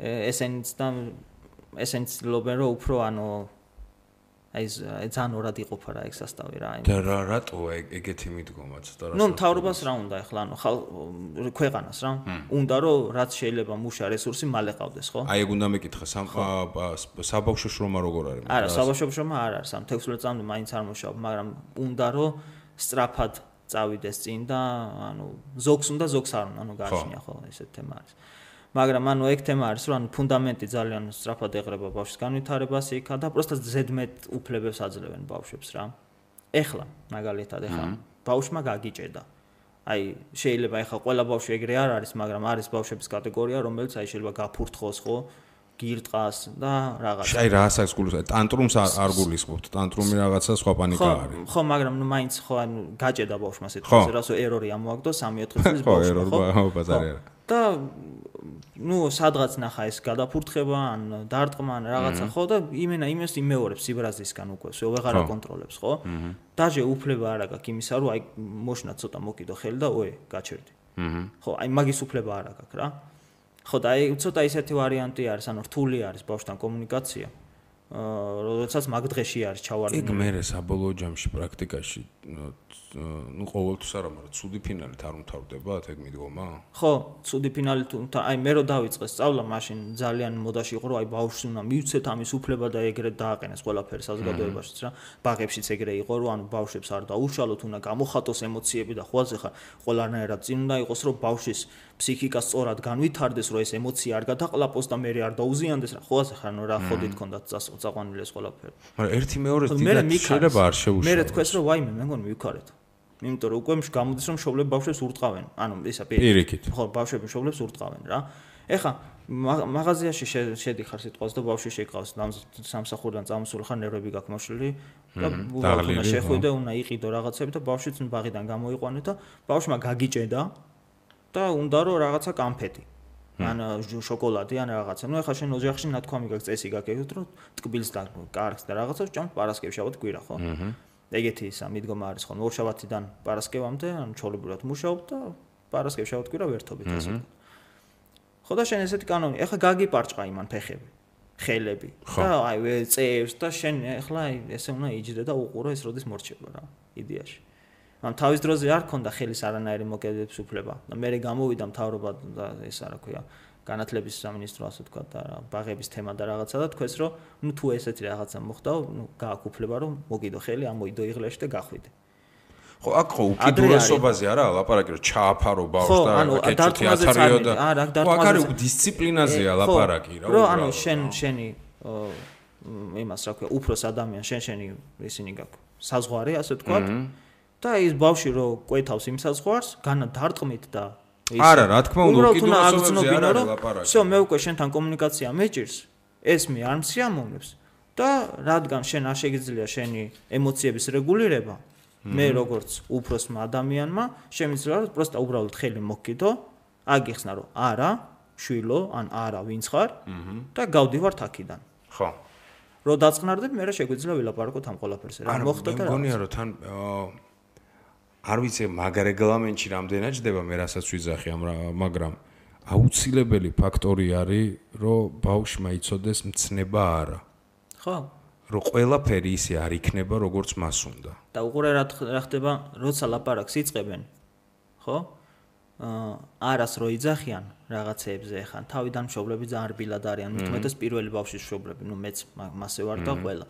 [SPEAKER 3] ესენიც ლობენ რომ უფრო ანუ აი ძალიან ორად იყოფა რა ეგ სასტავი რა.
[SPEAKER 2] და რატო ეგეთი მიდგომაც და რა?
[SPEAKER 3] ნუ მთავრობას რა უნდა ეხლა ანუ ქვეყანას რა. უნდა რომ რაც შეიძლება მუშა რესურსი მალე ყავდეს, ხო?
[SPEAKER 2] აი ეგ უნდა მეკითხა საბავშვო შრომა როგორ არის?
[SPEAKER 3] არა, საბავშვო შრომა არ არის, ამ 16 წლამდე მაინც არ მუშაობ, მაგრამ უნდა რომ სწრაფად წავიდეს წინ და ანუ ზოგს უნდა ზოგს არ უნდა, ანუ გააჩნია ხო ესეთ თემა არის. მაგრამ ანუ ეგ თემა არის რომ ანუ ფუნდამენტი ძალიან სწრაფად ეღრება ბავშვის განვითარებას იქა და პროსტა ზედმეტ უფლებებს აძლევენ ბავშვებს რა. ეხლა მაგალითად ეხლა ბავშვმა გაგიჭედა. აი შეიძლება ეხლა ყველა ბავშვი ეგრე არ არის, მაგრამ არის ბავშვების კატეგორია, რომელიც აი შეიძლება გაფურთხოს ხო, გირტყას და რაღაცა.
[SPEAKER 2] აი რა ასაკს გულისხმობთ? ტანტრუმს არ გულისხმობთ. ტანტრუმი რაღაცა სხვა პანიკა არის.
[SPEAKER 3] ხო, მაგრამ ნუ მაინც ხო ანუ გაჭედა ბავშვმა სიტყვაზე, რასო ერორი ამოაგდო 3-4 წლის ბავშვმა, ხო?
[SPEAKER 2] ხო, ბაზარი არა.
[SPEAKER 3] და ნუ სადღაც ნახა ეს გადაფურთხება ან დარტყმა ან რაღაცა ხო და იმას იმეორებს სიბრაზისგან უკვე всё ვეღარ აკონტროლებს ხო? დაჟე უფლება არ აქვს იმისა რომ აი მოშნა ცოტა მოკიდო ხელი და გაჩერდი. ხო, აი მაგის უფლება არ აქვს რა. ხო და აი ცოტა ისეთი ვარიანტი არის, ანუ რთული არის ბავშვთან კომუნიკაცია. როდესაც მაგ დღეში არის ჩავარდნილი.
[SPEAKER 2] ეგ მერე საბოლოო ჯამში პრაქტიკაში ნუ ყოველთვის არა, მაგრამ ცუდი ფინალით არ უმთავრდებათ ეგ მიდგომა?
[SPEAKER 3] ხო, ცუდი ფინალით აი მე რო დავიწყე სწავლა, მაშინ ძალიან მოდაში იყო რომ აი ბავშვს უნდა მივცეთ ამის უფლება და ეგრეთ დააყენეს ყველაფერი საზოგადოებაშიც რა. ბაღებშიც ეგრე იყო რომ ანუ ბავშვებს არ დაუშალოთ, უნდა გამოხატოს ემოციები და ხვალ ახლა ყველანაირად წინ უნდა იყოს რომ ბავშვის ფსიქიკა სწორად განვითარდეს, რომ ეს ემოცია არ გადაყლაპოს და მე არ დაუზიანდეს რა. ხო ახლა ნუ რა ხოდით ქონდათ წაყვანილი ეს ყველაფერი.
[SPEAKER 2] მაგრამ ერთი მეორეს დიდად შეიძლება არ შეუშალოს.
[SPEAKER 3] მე თქვეს რომ ვაიმე მე მგონი მივქარეთ. იმიტომ რომ უკვე გამოდის რომ მშობლები ბავშვებს ურტყავენ. ანუ ისა
[SPEAKER 2] პირიქით.
[SPEAKER 3] ხო, ბავშვები მშობლებს ურტყავენ რა. ეხლა მაღაზიაში შედიხარ სიტყვაზე და ბავშვი შეqავს სამსახურიდან წამოსული ხარ ნერვები გაქვს მოშლილი და უნდა შეხვიდე, უნდა იყიდო რაღაცები და ბავშვიც ბაღიდან გამოიყვანე და ბავშვმა გაგიჭედა და უნდა რომ რაღაცა კამფეტი. ან შოკოლადი ან რაღაცა. ნუ ეხლა შენ ოჯახში ნათქვამი გაქვს, წესი გაქვს, რომ ტკბილს და კარგს და რაღაცას ჭამთ პარასკევს შაბათ კვირა, ხო? ეგეთი ისა მიდგომა არის ხო ორშაბათიდან პარასკევამდე ან ჩაოლებურად მუშაობ და პარასკევს შაბათ კვირა ვერთობით ასე. ხო და შენ ესეთი კანონი, ეხლა გაგიპარჭყა იმან ფეხები, ხელები და აი წევს და შენ ეხლა აი ესე უნდა იჯდე და უყურო ეს როდის მორჩება რა იდეაში. ან თავის დროზე არ ქონდა ხელის არანაირი მოკედების უფლება და მე გამოვიდა მთავრობა და ეს რა ქვია განათლების სამინისტრო ასე თქვა და ბაღების თემა და რაღაცა და თქვეს რომ ნუ თუ ესეთი რაღაცა მოხდა, ნუ გააქვს უფლება რომ მოგიდო ხელი, ამოიდო იღლეში და გახვიდე.
[SPEAKER 2] ხო, აქ ხო უკიდურესობაზე არა ლაპარაკი რომ ჩააფარო ბავშვს და კეჭითი ათარიო და აქ არის დისციპლინაზეა ლაპარაკი რა.
[SPEAKER 3] რომ ანუ შენი იმას რა ქვია უფროს ადამიანს შენი ისინი გაქვს საზღვარი ასე თქვა და ის ბავშვი რო კვეთავს იმ საზღვარს განა დარტყმით და
[SPEAKER 2] არა, რა თქმა უნდა, უკიდურესობაზე არ არის ლაპარაკი.
[SPEAKER 3] всё, მე უკვე შენთან კომუნიკაცია მეჭირს, ეს მე არ მსიამოვნებს და რადგან შენ არ შეგიძლია შენი ემოციების რეგულირება, მე როგორც უფროსმა ადამიანმა შემიძლია რომ პროსტა უბრალოდ ხელი მოგკიდო, აგიხსნა რომ არა, შვილო, ან არა, ვინც ხარ და გავდივართ აქედან.
[SPEAKER 2] ხო.
[SPEAKER 3] რო დაწყნარდებ, მე რა შეგვიძლია ვილაპარაკოთ ამ ყველაფერზე. რა მოხდა და რა.
[SPEAKER 2] მე მგონია რომ თან არ ვიცი მაგ რეგლამენტში რამდენად ჯდება მე რასაც ვიძახი მაგრამ აუცილებელი ფაქტორი არის რომ ბავშვმა იცოდეს მცნება არა.
[SPEAKER 3] ხო.
[SPEAKER 2] რომ ყველაფერი ისე არ იქნება როგორც მას უნდა.
[SPEAKER 3] და უყურე რა ხდება, როცა ლაპარაკს იწყებენ. ხო? არას რო იძახიან რაღაცეებზე ხან თავიდან მშობლები ძალიან რბილად არიან, მithumetes პირველი ბავშვის მშობლები, ნუ მეც მასე ვარ და ყველა.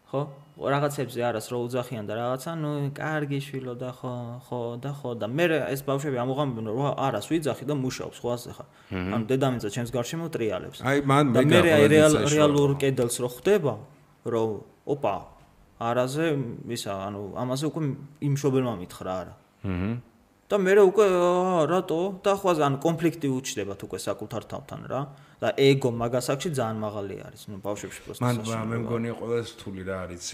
[SPEAKER 3] ხო? რაღაცებზე არას რო უძახიან და რაღაცა, ნუ კარგი შვილო და ხო და მე ეს ბავშვები ამოღამებენ რომ არას ვიძახი და მუშაობს ხო ასე ხარ. ანუ დედამიწა ჩემს გარშემო ტრიალებს.
[SPEAKER 2] აი მან მე
[SPEAKER 3] რეალურ კედელს რო ხდება, რომ ოპა არაზე ისა ანუ ამაზე უკვე იმ მშობელმა მითხრა არა. და მე უკვე რატო და ხვაზე ანუ კონფლიქტი უჩნდებათ უკვე საკუთარ თავთან რა და ეგო მაგასაკში ძალიან მაღალი არის ნუ ბავშვებში პროსტა
[SPEAKER 2] მან მე მგონია ყველაზე რთული რა არის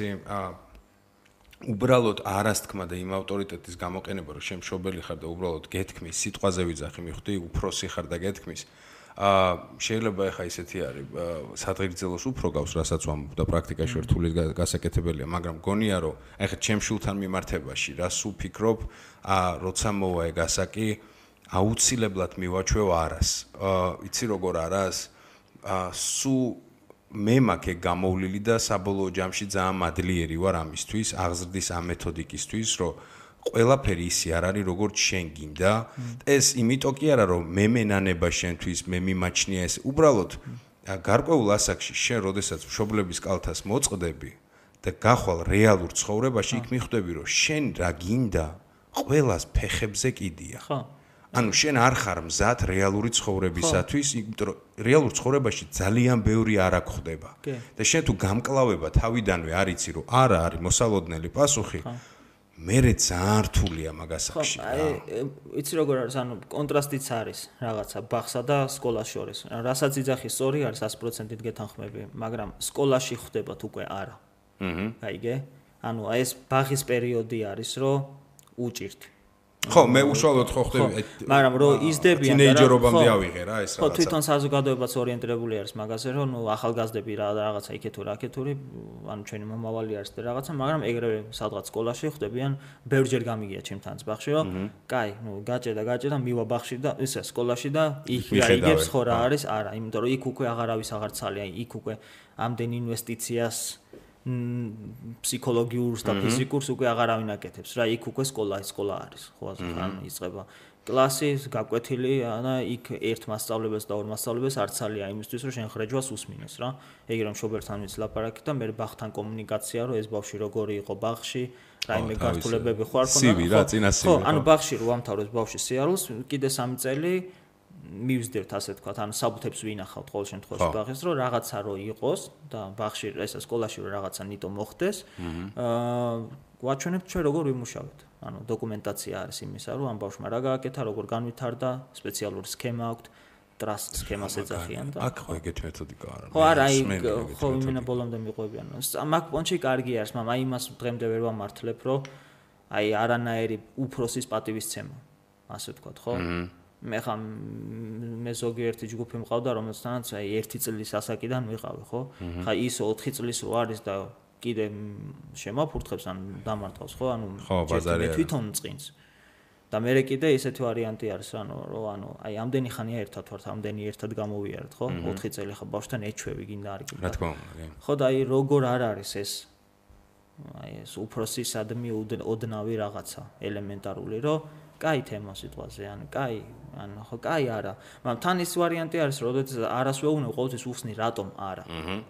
[SPEAKER 2] უბრალოდ არას თქმა და იმ ავტორიტეტის გამოყენება რომ შენ მშობელი ხარ და უბრალოდ გეთქმის სიტყვაზე ვიძახი მიხვდი უფროსი ხარ და გეთქმის შეიძლება ახლა ისეთი არის სადღეგრძელოს უფრო გავს რასაც ვამბობ და პრაქტიკაში რთული გასაკეთებელია მაგრამ გონია რომ ახლა ჩემ შულთან მიმართებაში რას უფიქრობ როცა მოვა ეგ ასაკი აუცილებლად მივაჩვევ არას იცი როგორ არას სუ მე მაქვს გამოვლილი და საბოლოო ჯამში ძალიან მადლიერი ვარ ამისთვის, აღზრდის ამ მეთოდიკისთვის, რომ ყველაფერი ისე არ არის, როგორც შენ გინდა. ეს იმიტომ კი არა, რომ მე მენანება შენთვის, მე მიმაჩნია ეს. უბრალოდ გარკვეულ ასაკში შენ, როდესაც მშობლების კალთას მოწყდები და გახვალ რეალურ ცხოვრებაში, იქ მიხვდები, რომ შენ რა გინდა, ყველას ფეხებზე კიდია.
[SPEAKER 3] ხო.
[SPEAKER 2] ანუ შენ არ ხარ მზად რეალური ცხოვრებისათვის, იმიტომ რომ რეალურ ცხოვრებაში ძალიან ბევრი არა გხდება. და შენ თუ გამკლავება თავიდანვე არ იცი, რომ არა არის მოსალოდნელი პასუხი, მერე ძალიან რთულია მაგასაკში.
[SPEAKER 3] იცი როგორ არის, ანუ კონტრასტიც არის რაღაცა ბაღსა და სკოლას შორის. რასაც იძახი სწორი არის 100%-ით გეთანხმები, მაგრამ სკოლაში ხდებათ უკვე არა. გაიგე? ანუ ეს ბაღის პერიოდი არის, რომ უჭირთ.
[SPEAKER 2] ხო, მე უშუალოდ ხო ხდები,
[SPEAKER 3] მაგრამ რომ იზდებიან და
[SPEAKER 2] თინეიჯერობამდე ავიღე რა ეს რაღაცა.
[SPEAKER 3] ხო, თვითონ საზოგადოებაც ორიენტირებული არის მაგაზე, რომ ნუ ახალგაზრდები რაღაცა იქეთო რაკეთური, ანუ ჩვენი მომავალი არის და რაღაცა, მაგრამ ეგრევე სადღაც სკოლაში ხდებიან, ბევრჯერ გამიგია ჩემთანაც ბაღში, რომ კაი, ნუ გაჭედა, მივა ბაღში და ისე სკოლაში და იქ რაიგებს ხო რა არის, არა, იმიტომ რომ იქ უკვე აღარავის აღარ ცალია, იქ უკვე ამდენ ინვესტიციას ფსიქოლოგიურს და ფიზიკურს უკვე აღარავინ აკეთებს რა იქ უკვე სკოლა არის ხო ანუ იწყება კლასი გაკვეთილი და იქ ერთ მასწავლებელს და ორ მასწავლებელს არ ცალია იმისთვის რომ შენ ხრეჯვას უსმინოს რა ეგ რომ მშობელთან ვიცი ლაპარაკი და მე ბაღთან კომუნიკაცია რომ ეს ბავშვი როგორი იყო ბაღში რაიმე გართულებები ხო არ ქონდა ხო ანუ ბაღში რო ამთავრებს ბავშვის სიარულს კიდე 3 წელი მივსდევთ ასე თქვა, ანუ საბუთებს ვინახავთ ყოველ შემთხვევაში ბაღის, რომ რაღაცა რო იყოს და ბაღში ესა სკოლაში რო რაღაცა ნიტო მოხდეს, გვაჩვენებთ ჩვენ როგორ ვიმუშავეთ. ანუ დოკუმენტაცია არის იმისა, რომ ამ ბავშვმა რა გააკეთა, როგორ განვითარდა, სპეციალური სქემა აქვს, ტრასტ სქემას ეძახიან და
[SPEAKER 2] აქ ხო ეგეთი მეთოდიკა არა.
[SPEAKER 3] ხო არა, ხო იმენა ბოლომდე მიყვებიან. მაგ პონჩი კარგი არის, მაგრამ აი იმას დღემდე ვერ ვამართლებ, რომ აი არანაირი უფროსის პატივისცემა, ასე ვთქვათ, ხო? მე ხა მე ზოგიერთი ჯგუფი მყავდა რომელსაც აი 1 წლის ასაკიდან ვიყავი ხო ხა ის 4 წლის რო არის და კიდე შემაფურთხებს ან დამარტყავს ხო ანუ მე თვითონ წინს და მე კიდე ისეთი ვარიანტი არის ანუ რომ ანუ აი ამდენი ხანია ერთად ვართ ამდენი ერთად გამოვიარეთ ხო 4 წელი ხა ბავშვთან ეჩვევი გინდა არ გინდა
[SPEAKER 2] რა თქმა უნდა
[SPEAKER 3] ხო და აი როგორ არ არის ეს აი ეს უფროსისადმი ოდნავი რაღაცა ელემენტარული რომ კაი თემა სიტყვაზე, ანუ კაი, ანუ ხო კაი არა. მაგრამ თან ის ვარიანტი არის, როდესაც არას ვეუბნები, ყოველთვის უხსნი რატომ არა.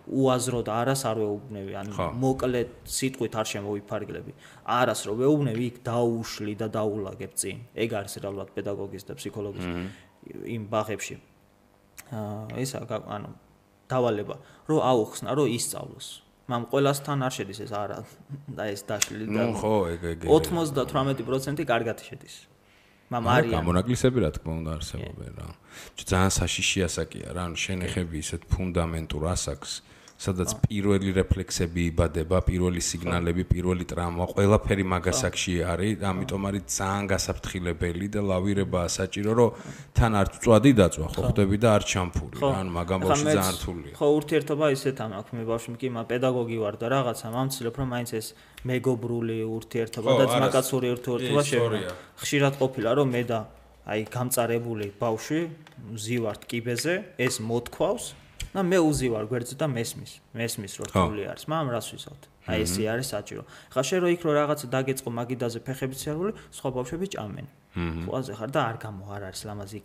[SPEAKER 3] უაზრო და არას არ ვეუბნები, ანუ მოკლე სიტყვით არ შემოვიფარგლები. არას რო ვეუბნები, იქ დაუშლი და დაულაგებ წინ. ეგ არის რეალურად პედაგოგის და ფსიქოლოგის იმ ბაღებში. ისა ანუ დავალება, რომ აუხსნა, რომ ისწავლოს. მაგრამ ყველასთან არ შედის ეს არა და ეს დაშლილი და
[SPEAKER 2] ხო ეგ
[SPEAKER 3] 98% კარგად შედის. მაგრამ არის
[SPEAKER 2] გამონაკლისები რა თქმა უნდა არსებობენ რა. ძალიან საშიში ასაკია რა, ანუ შენეხები ისეთ ფუნდამენტურ ასაკს, სადაც პირველი რეფლექსები იბადება, პირველი სიგნალები, პირველი ტრაუმა, ყველაფერი მაგასაკში არის, ამიტომ არის ძალიან გასაფრთხილებელი და ლავირებაა საჭირო, რომ თან არ წვადი დაწვა, ხო ხდები და არ ჩამფური, ანუ მაგამ ბავშვი ძალიან რთულია.
[SPEAKER 3] ხო, ურთიერთობა ისეთ ამაქვს, მე ბავშვი კი პედაგოგი ვარ და რაღაცა მამცილებ რომ მაინც ეს მეგობრული ურთიერთობა და ძმაკაცური ურთიერთობა შევიდა. ხშირად ყოფილა რომ მე და აი გამწარებული ბავშვი ვზივართ კიბეზე, ეს მოთქვავს და მე უზივარ გვერდზე და მესმის რომ რთული არის, მაგრამ რას ვისაუბროთ? აი ესე არის საჭირო. ხა შენ რო იქ რო რაღაცა დაგეწყო მაგიდაზე ფეხებით სიარული, სხვა ბავშვები ჭამენ. ხوازე ხარ და არ არის ლამაზი.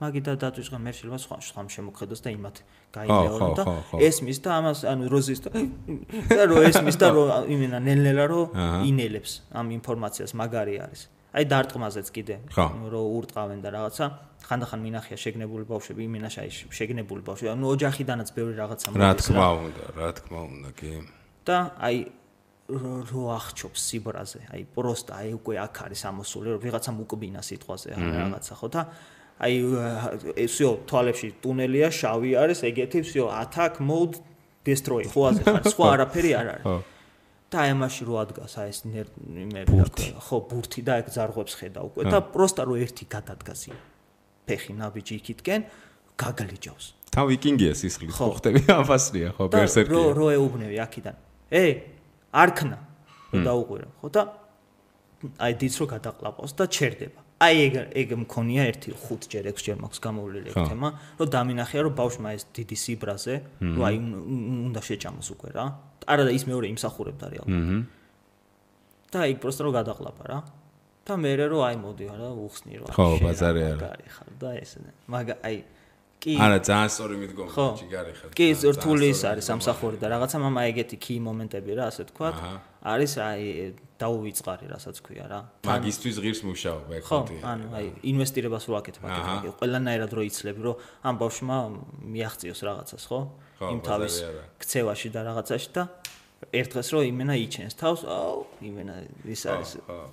[SPEAKER 3] მაგიდა დაწვიწყა მე შეიძლება სხვა შემოხედოს და იმათ გაიმეორე და ესმის და ამას ანუ როზის და რო ესმის და რო იმენა ნელ-ნელა რო ინელებს ამ ინფორმაციას მაგარი არის. აი დარტყმაზეც კიდე რო ურტყავენ და რაღაცა ხანდახან მინახია შეგნებული ბავშვები იმენაში აი შეგნებული ბავშვები ანუ ოჯახიდანაც ბევრი რაღაცა
[SPEAKER 2] მოდის რა თქმა უნდა კი
[SPEAKER 3] და აი რო აღჩობს სიბრაზე აი პროსტა აი უკვე აქ არის ამოსული რომ ვიღაცამ უკბინა სიტყვაზე რაღაცა ხო და აი всё თვალებში ტუნელია შავი არის ეგეთი всё attack mode destroy ხოაზე ხარ სხვა არაფერი არ არის და აი ამაში რო ადგას აი ეს იმები ხო ბურთი და ეგ ზარღვებს ხედა უკვე და პროსტა რო ერთი გადადგას ფეხი ნაბიჯი იქითკენ გაგლიჯავს
[SPEAKER 2] თავ ვიკინგია სისხლის ხო ხტები აფასრია ხო ბერსერკია
[SPEAKER 3] რო ეუბნები აქიდან არქნა რო დაუყვირა ხო და აი დიც რო გადაყლაპავს და ჩერდება აი ეგ მქონია 5-ჯერ 6-ჯერ მაქვს გამოვლილი ეგ თემა, რომ დამინახია რომ ბავშვმა ეს დიდი სიბრაზე, რომ აი უნდა შეჭამოს უკვე რა. არა და ის მეორე იმსახურებდა რეალურად. და იქ პროსტო რომ გადაყლაპა რა. და მე რომ აი მოდი რა უხსნი რა.
[SPEAKER 2] ხო, ბაზარი არა.
[SPEAKER 3] მაგარი ხარ და ესე. მაგა აი კი
[SPEAKER 2] არა ძალიან სწორი მიდგომა ჯიგარი ხარ.
[SPEAKER 3] კი რთული ის არის სამსახური და რაღაცა მამა ეგეთი key მომენტები რა ასე თქვა. არის აი დაუვიწყარი რასაც ქვია რა.
[SPEAKER 2] მაგისტვის ღირს მუშაობა ეგ ხოთია.
[SPEAKER 3] ხო, ანუ აი ინვესტირებას რო აკეთებ აკეთებ. ყველანაირად რო იცლები რომ ამ ბავშვმა მიაღწიოს რაღაცას, ხო? იმ თავის ქცევაში და რაღაცაში და ერთ დღეს რო იმენა იჩენს თავს, აუ, იმენა ის არის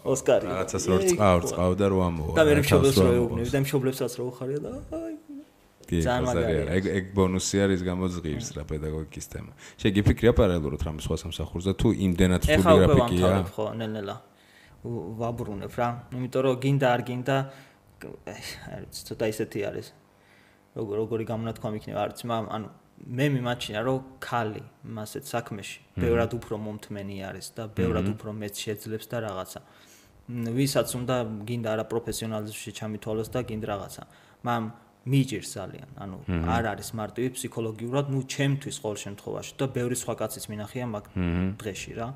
[SPEAKER 3] ოსკარი.
[SPEAKER 2] რაღაცას რო წყავ და რო ამოვა.
[SPEAKER 3] და მე მშობლებს რო ეუბნები და მშობლებსაც რო უხარია და აი
[SPEAKER 2] ძალიან მაგარია. ეგ ბონუსი არის გამოძღირს რა პედაგოგიკის თემა. შეგიფიქრია პარალელურად რამ სხვა სამსახურზე თუ იმდენად რთული გრაფიკია?
[SPEAKER 3] ეხლა ხო, ნელ-ნელა ვაბრუნებ რა. იმიტომ რომ გინდა არ გინდა არის ცოტა ისეთი არის. როგორი გამონათქვამი იქნება არც ანუ მე მიმაჩნია რომ ქალი მასეთ საქმეში ბევრად უფრო მომთმენი არის და ბევრად უფრო მეც შეძლებს და რაღაცა. ვისაც უნდა გინდა არა პროფესიონალიზმში ჩამითვალოს და გინდა რაღაცა. მამ მიჯერს ძალიან, ანუ არ არის მარტივი ფსიქოლოგიურად, ნუ ჩემთვის ყოველ შემთხვევაში და ბევრი სხვა კაცის მინახია მაგ დღეში რა.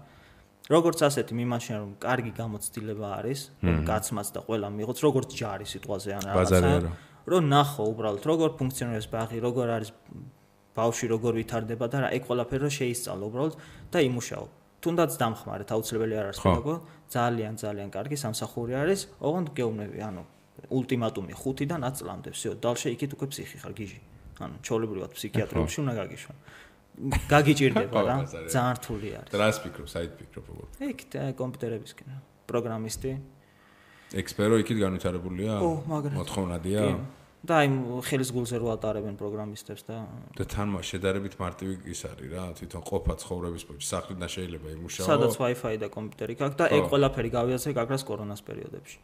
[SPEAKER 3] როგორც ასეთი მიმაჩნია რომ კარგი გამოცდილება არის, რომ კაცმაც და ყველა მიიღოს, როგორც ჯარი სიტყვაზე ან რაღაცა. რომ ნახო უბრალოდ როგორ ფუნქციონირებს ბაღი, როგორ არის ბავშვი როგორ ვითარდება და რა ეგ ყველაფერი რომ შეისწავლო უბრალოდ და იმუშაო. თუნდაც დამხმარეთ, აუცილებელი არ არის პედაგოგი, ძალიან კარგი სამსახური არის, ოღონდ გეუბნები, ანუ ულტიმატუმი 5-დან 10 წლამდე, всё, დალშე იქით უკვე ფსიქი ხარ, გიჟი. ანუ ჩაოლებრივად ფსიქიატრებში უნდა გაგიშვა. გაგიჭირდება რა, ძალიან რთული არის.
[SPEAKER 2] დრას ფიქრობ, საით ფიქრობ უბრალოდ.
[SPEAKER 3] იქ კომპიუტერებისკენ, პროგრამისტი.
[SPEAKER 2] ექსპერო იქით განვითარებულია? მოთხოვნადია?
[SPEAKER 3] და აი ხელის გულზე რო ატარებენ პროგრამისტებს და
[SPEAKER 2] თან შედარებით მარტივი ის არის რა, თვითონ ყოფა ცხოვრების პოჭი, სახლიდან შეიძლება იმუშაო.
[SPEAKER 3] სადაც Wi-Fi და კომპიუტერი გაქვს და ეგ ყველაფერი გავიაზრე გაგრას კორონას პერიოდებში.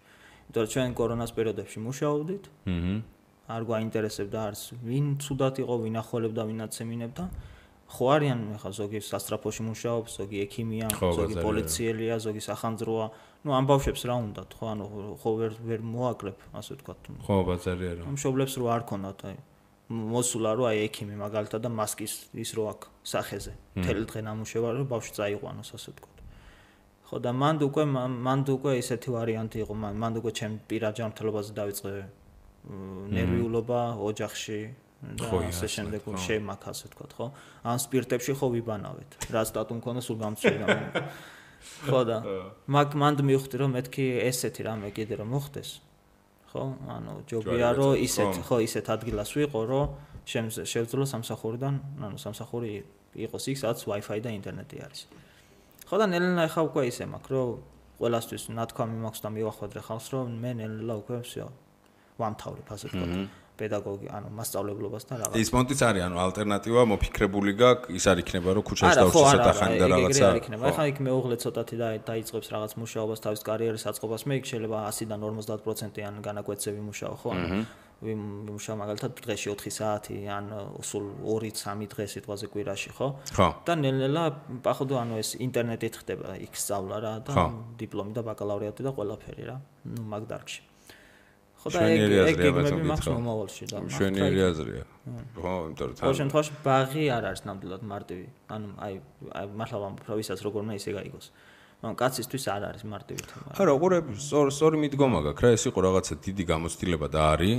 [SPEAKER 3] იმიტომ რომ ჩვენ კორონას პერიოდებში მუშაობდით. არ გვაინტერესებდა არც ვინ ცუდად იყო, ვინ ახოლებდა, ვინაც ემინებდა. ხო არიან ხა ზოგი სასტრაფოში მუშაობს, ზოგი ექიმია, ზოგი პოლიციელია, ზოგი სახანძროა. ნუ ამ ბავშვებს რა უნდათ, ხო, ანუ ხო ვერ მოაკლებ, ასე ვთქვათ.
[SPEAKER 2] ხო, ბაზარი არა.
[SPEAKER 3] მშობლებს რო არ ქონათ, აი მოსულა რო აი ექიმი მაგალითად და მასკის ის რო აქ სახეზე. მთელი დღე ნამუშევა რომ ბავშვი წაიყვანოს, ასე ვთქვათ. ხო და მანდ უკვე ისეთი ვარიანტი იყო, მანდ უკვე ჩემ პირად ჯანმრთელობაზე დავიწყე ნერვიულობა ოჯახში. და ასე შემდეგ შემაქ ასე ვთქვათ, ხო? ან სპირტებში ხო ვიბანავეთ. რა სტატუ მქონდა სულ გამწვენა. ხო და მანდ მივხვდი რომ მეთქი ესეთი რამე კიდე რომ მოხდეს. ხო? ანუ ჯობია რომ ისეთ ადგილას ვიყო, რომ შევძლო სამსახურიდან, ანუ სამსახური იყოს იქ, სადაც Wi-Fi და ინტერნეტი არის. ხო და ნელ-ნელა ხა უკვე ისე მაქვს, რომ ყველასთვის ნათქვამი მაქვს და მივახვედრე ხალხს, რომ მე ნელ-ნელა უკვე всё ვამთავრებ, ასე ვთქვათ. პედაგოგი, ანუ მასწავლებლობას და რაღაც.
[SPEAKER 2] ის მონტიც არის, ანუ ალტერნატივა მოფიქრებული გაქვს, ის არ იქნება რომ ქუჩაში დავშისოთ ახალი და რაღაცა.
[SPEAKER 3] არ იქნება. ახლა იქ მეუღლე ცოტათი დაიწყებს რაღაც მუშაობას, თავის კარიერის აწყობას, მე იქ შეიძლება 100-დან 50%-იან განაკვეთები მუშაო, ხო? ვიმუშაო მაგალითად დღეში 4 საათი, ან სულ 2-3 დღე სიტყვაზე კვირაში, ხო? და ნელ-ნელა პაходу ანუ ეს ინტერნეტით ხდება იქ სწავლა რა და დიპლომი და ბაკალავრიატი და ყველაფერი რა. ნუ მაგ დარგში. ხო და ეგ გეგმები მაქვს მომავალში და
[SPEAKER 2] მშვენიერი აზრია. ხო, იმიტომ რომ
[SPEAKER 3] ყოველ შემთხვევაში ბაღი არ არის ნამდვილად მარტივი. ანუ აი მართლა ვამბობ, რომ ვისაც როგორ უნდა ისე გაიგოს. მაგრამ კაცისთვის არ არის მარტივი თემა.
[SPEAKER 2] არა, უყურე, სწორი მიდგომა გაქვს რა, ეს იყო რაღაცა დიდი გამოცდილება და არის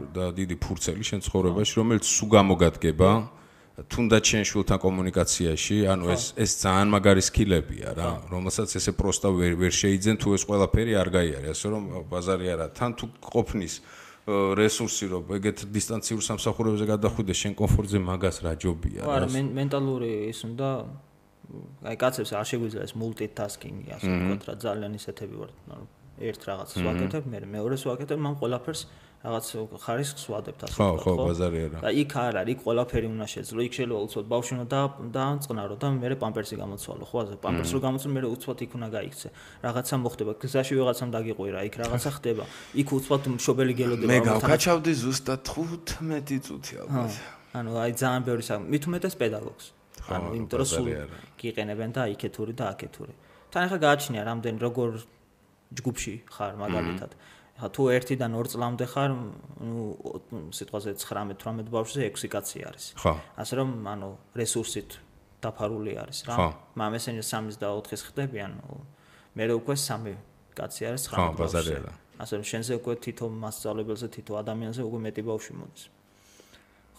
[SPEAKER 2] და დიდი ფურცელი შენ ცხოვრებაში, რომელიც სულ გამოგადგება. თუნდაც შენ შვილთან კომუნიკაციაში, ანუ ეს ძალიან მაგარი სკილებია რა, რომელსაც ესე პროსტა ვერ შეიძენ თუ ეს ყველაფერი არ გაიარე, ასე რომ ბაზარი არა, თან თუ ყოფნის რესურსი რომ ეგეთ დისტანციურ სამსახურებზე გადახვიდეს შენ კომფორტზე მაგას რა ჯობია რა.
[SPEAKER 3] არა, მენტალური ის უნდა აი კაცებს არ შეგვიძლია ეს multitasking-ი, ასე ვთქვათ რა, ძალიან ისეთები ვართ, ანუ ერთ რაღაცას ვაკეთებ, მე მეორეს ვაკეთებ, მან ყველაფერს რაღაც ხარისხს ვადებთ ასე ვთქვათ.
[SPEAKER 2] ხო, ბაზარი არა.
[SPEAKER 3] და იქ არ არის, იქ ყველაფერი უნდა შეძლო. იქ შეიძლება უცბად ბავშვი უნდა დაანწყნარო და მე პამპერსი გამოცვალო, ხო, ასე პამპერსი რო გამოცვალო, მე უცბად იქ უნდა გაიქცე. რაღაცა მოხდება, გზაში ვიღაცამ დაგიყვირა, იქ რაღაცა ხდება. იქ უცბად მშობელი გელოდება.
[SPEAKER 2] მე გავკაჩავდი ზუსტად 15 წუთი ალბათ.
[SPEAKER 3] ანუ აი ძალიან ბევრი საქმე, მით უმეტეს პედაგოგს. ანუ იმიტომ რომ სულ გიყენებენ და იქეთური და აქეთური. თან ახლა გააჩნია რამდენი როგორ ჯგუფში ხარ მაგალითად. თუ 1-დან 2 წლამდე ხარ, სიტყვაზე 19-18 ბავშვზე 6 კაცი არის.
[SPEAKER 2] ხო.
[SPEAKER 3] ასე რომ, რესურსით დაფარული არის რა. მამესენი 3 და 4-ის ხდებიან, მე უკვე 3 კაცი არის 19 ბავშვზე. ასე რომ, შენზე უკვე თითო მასწავლებელზე, თითო ადამიანზე უკვე მეტი ბავშვი მოდის.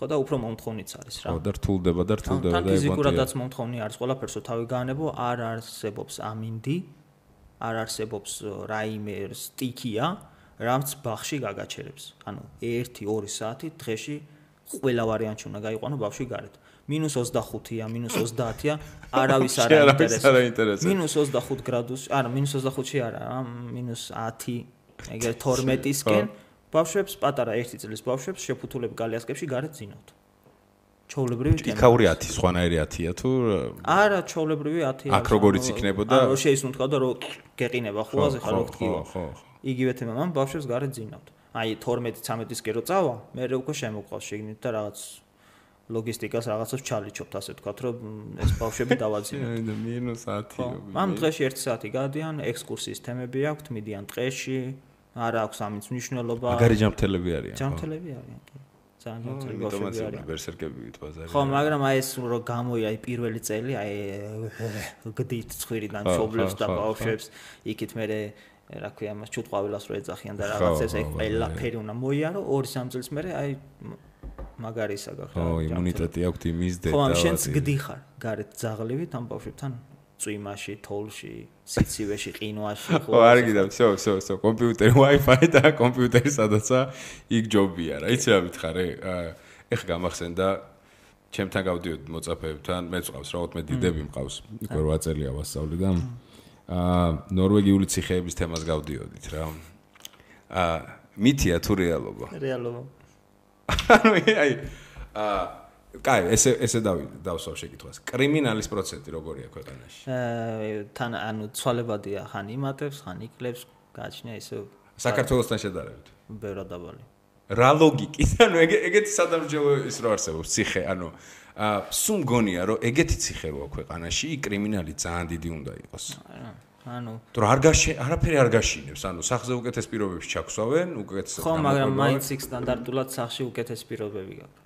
[SPEAKER 3] ხო და უფრო მომთხოვნიც არის რა.
[SPEAKER 2] ხო და რთულდება და
[SPEAKER 3] თან ფიზიკურადაც მომთხოვნი არის, ყველაფერსო თავი გაანებო, არ არსებობს ამინდი, არ არსებობს რაიმე სტიქია, რაც ბაღში გაგაჩერებს. 1-2 საათი დღეში ყველა ვარიანტი უნდა გაიყვანო ბავშვი გარეთ. -25-ია, -30-ია, არავის არ აინტერესებს. -25 გრადუსი, არა, -25-ში არა, -10, ეგრე 12-ისკენ ბავშვებს, პატარა 1 წლის ბავშვებს შეფუთულები გალიასკებში გარეთ ძინავთ. ჩოვლებრივი თემა.
[SPEAKER 2] იქაური 10, სხვანაირი 10-ია თუ
[SPEAKER 3] არა, ჩოვლებრივი 10-ია.
[SPEAKER 2] აქ როგორიც იქნებოდა?
[SPEAKER 3] არა, შეისუნთქავდა რომ გეყინება ხუაზე ხარ რო გთქივა.
[SPEAKER 2] ხო.
[SPEAKER 3] იგივე თემა, მან ბავშვებს გარეთ ძინავთ. აი 12-13-ისკენ რო წავა, მე უკვე შემოყვავს შეგნით და რაღაც ლოგისტიკას რაღაცას ჩალიჩობთ, ასე ვთქვათ, რომ ეს ბავშვები დავაძინოთ.
[SPEAKER 2] -10.
[SPEAKER 3] ამ დღეში 1 საათი გადიან, ექსკურსიის თემები აქვთ, მიდიან ტყეში, არ აქვს ამის მნიშვნელობა.
[SPEAKER 2] მაგარი ჯანმრთელები არიან.
[SPEAKER 3] ჯანმრთელები არიან, კი. ძალიან ჯანმრთელი ბავშვები არიან.
[SPEAKER 2] ბერსერკები ვიტბაზარი.
[SPEAKER 3] ხო, მაგრამ აი ეს რო გამოია აი პირველი წელი, აი გდით ცხვირიდან ჩობლებს და ბავშვებს, იქით მე რა ქვია, მას ჩუტყვავილას რო ეძახიან და რაღაცებს აი ყველაფერი უნდა მოიარო, 2-3 წელს მერე აი მაგარი ისა გაქვს.
[SPEAKER 2] ხო, იმუნიტეტი აქვთ იმის და
[SPEAKER 3] ხო, შენც გდიხარ გარეთ ძაღლივით ამ ბავშვებთან წვიმაში, თოვლში, სიცივეში, ყინვაში,
[SPEAKER 2] ხო, არ გიდავ, всё, კომპიუტერი, Wi-Fi და კომპიუტერი სადაცაა, იქ ჯობია რა. იცი რა მითხარე? ეხლა გამახსენდა ჩემთან გავდიოდი მოწაფეებთან, მეც ყავს რა 14 დიდები მყავს. იქ 8 წელია ვასწავლი და ნორვეგიული ციხეების თემას გავდიოდით რა. მითია თუ რეალობა?
[SPEAKER 3] რეალობა.
[SPEAKER 2] კაი, ესე დავსვავ შეკითხვას. კრიმინალის პროცენტი როგორია ქვეყანაში?
[SPEAKER 3] თან ცვალებადია, ხან იმატებს, ხან იკლებს, გააჩნია ისე
[SPEAKER 2] საქართველოსთან შედარებით.
[SPEAKER 3] ბევრად დაბალი.
[SPEAKER 2] რა ლოგიკით? ეგეთი სადამსჯელო ის რო არსებობს ციხე, სულ მგონია რომ ეგეთი ციხე როა ქვეყანაში, კრიმინალი ძალიან დიდი უნდა იყოს. თუ არაფერი არ გაშინებს, სახზე უკეთეს პირობებში ჩაქვსავენ, უკეთეს
[SPEAKER 3] ხო, მაგრამ მაინც იქ სტანდარტულად სახში უკეთეს პირობები გაქვს.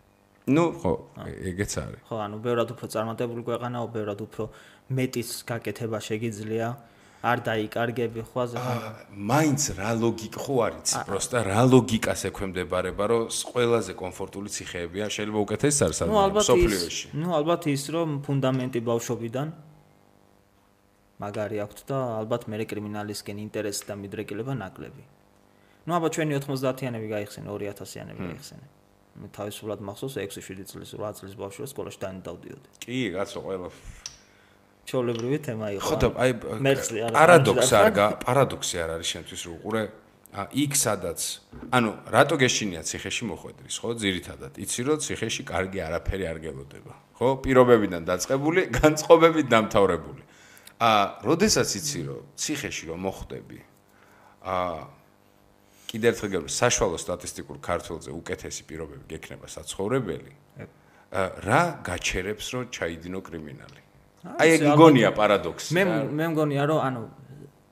[SPEAKER 2] ხო, ეგეც არის.
[SPEAKER 3] ხო, ბევრად უფრო წარმატებული ქვეყანაა, ბევრად უფრო მეტის გაკეთება შეგიძლია, არ დაიკარგები ხვაზე.
[SPEAKER 2] მაინც რა ლოგიკა ხო არის? პროსტა რა ლოგიკას ექვემდებარება, რომ ყველაზე კომფორტული ციხეებია, შეიძლება უკეთესი არის სოფლიოში.
[SPEAKER 3] ალბათ ის რომ ფუნდამენტი ბავშვობიდან მაგარი აქვს და ალბათ მე კრიმინალისკენ ინტერესი და მიდრეკილება ნაკლები. ალბათ ჩვენი 90-იანები გაიხსენე, 2000-იანები გაიხსენე. მე თავისუფლად მახსოვს 6-7 წლის, 8 წლის ბავშვი სკოლაში დავდიოდი.
[SPEAKER 2] კი, კაცო, ყველა
[SPEAKER 3] ჩოვლებრივი თემა იყო.
[SPEAKER 2] ხო და აი პარადოქსი არ არის შენთვის რო უყურე იქ სადაც რატო გეშინია ციხეში მოხვედრის, ხო, ძირითადად იცი რომ ციხეში კარგი არაფერი არ გელოდება, ხო, პირობებიდან დაწყებული, განწყობებით დამთავრებული. როდესაც იცი რომ ციხეში რომ მოხვდები, კიდევ ერთხელ გეუბნები, საშუალო სტატისტიკურ ქართველზე უკეთესი პირობები გექნება საცხოვრებელი, რა გაჩერებს რომ ჩაიდინო კრიმინალი? აი ეგ მგონია პარადოქსი.
[SPEAKER 3] მე მგონია რომ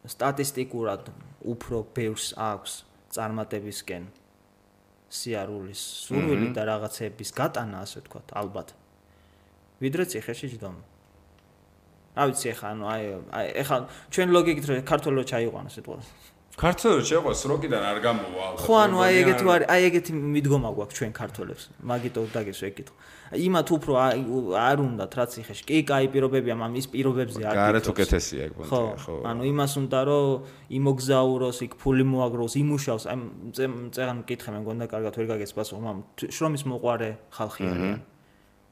[SPEAKER 3] სტატისტიკურად უფრო ბევრს აქვს წარმატებისკენ სიარულის სურვილი და რაღაცების გატანა, ასე ვთქვათ, ალბათ. ვიდრე ციხეში ჯდომა. რა ვიცი ეხლა ჩვენ ლოგიკით რომ ქართველო ჩაიყვანო სიტყვა.
[SPEAKER 2] ქართველო შეყვას როკიდან არ გამოვა ალბათ.
[SPEAKER 3] ხო, აი ეგეთი მიდგომა გვაქვს ჩვენ ქართველებს. მაგიტო დაგესვა ეკითხვა. იმათ უფრო არ უნდათ რა ციხეში. კი, კაი პირობებია, მაგრამ ის პირობებზე არ გიქრობს.
[SPEAKER 2] გარეთ უკეთესია ეგ პონტი, ხო.
[SPEAKER 3] იმას უნდა რომ იმოგზაუროს, იქ ფული მოაგროს, იმუშავს. აი წეგან მკითხე მე მგონდა კარგად ვერ გაგეს პასუხი, მაგრამ შრომის მოყვარე ხალხი არიან.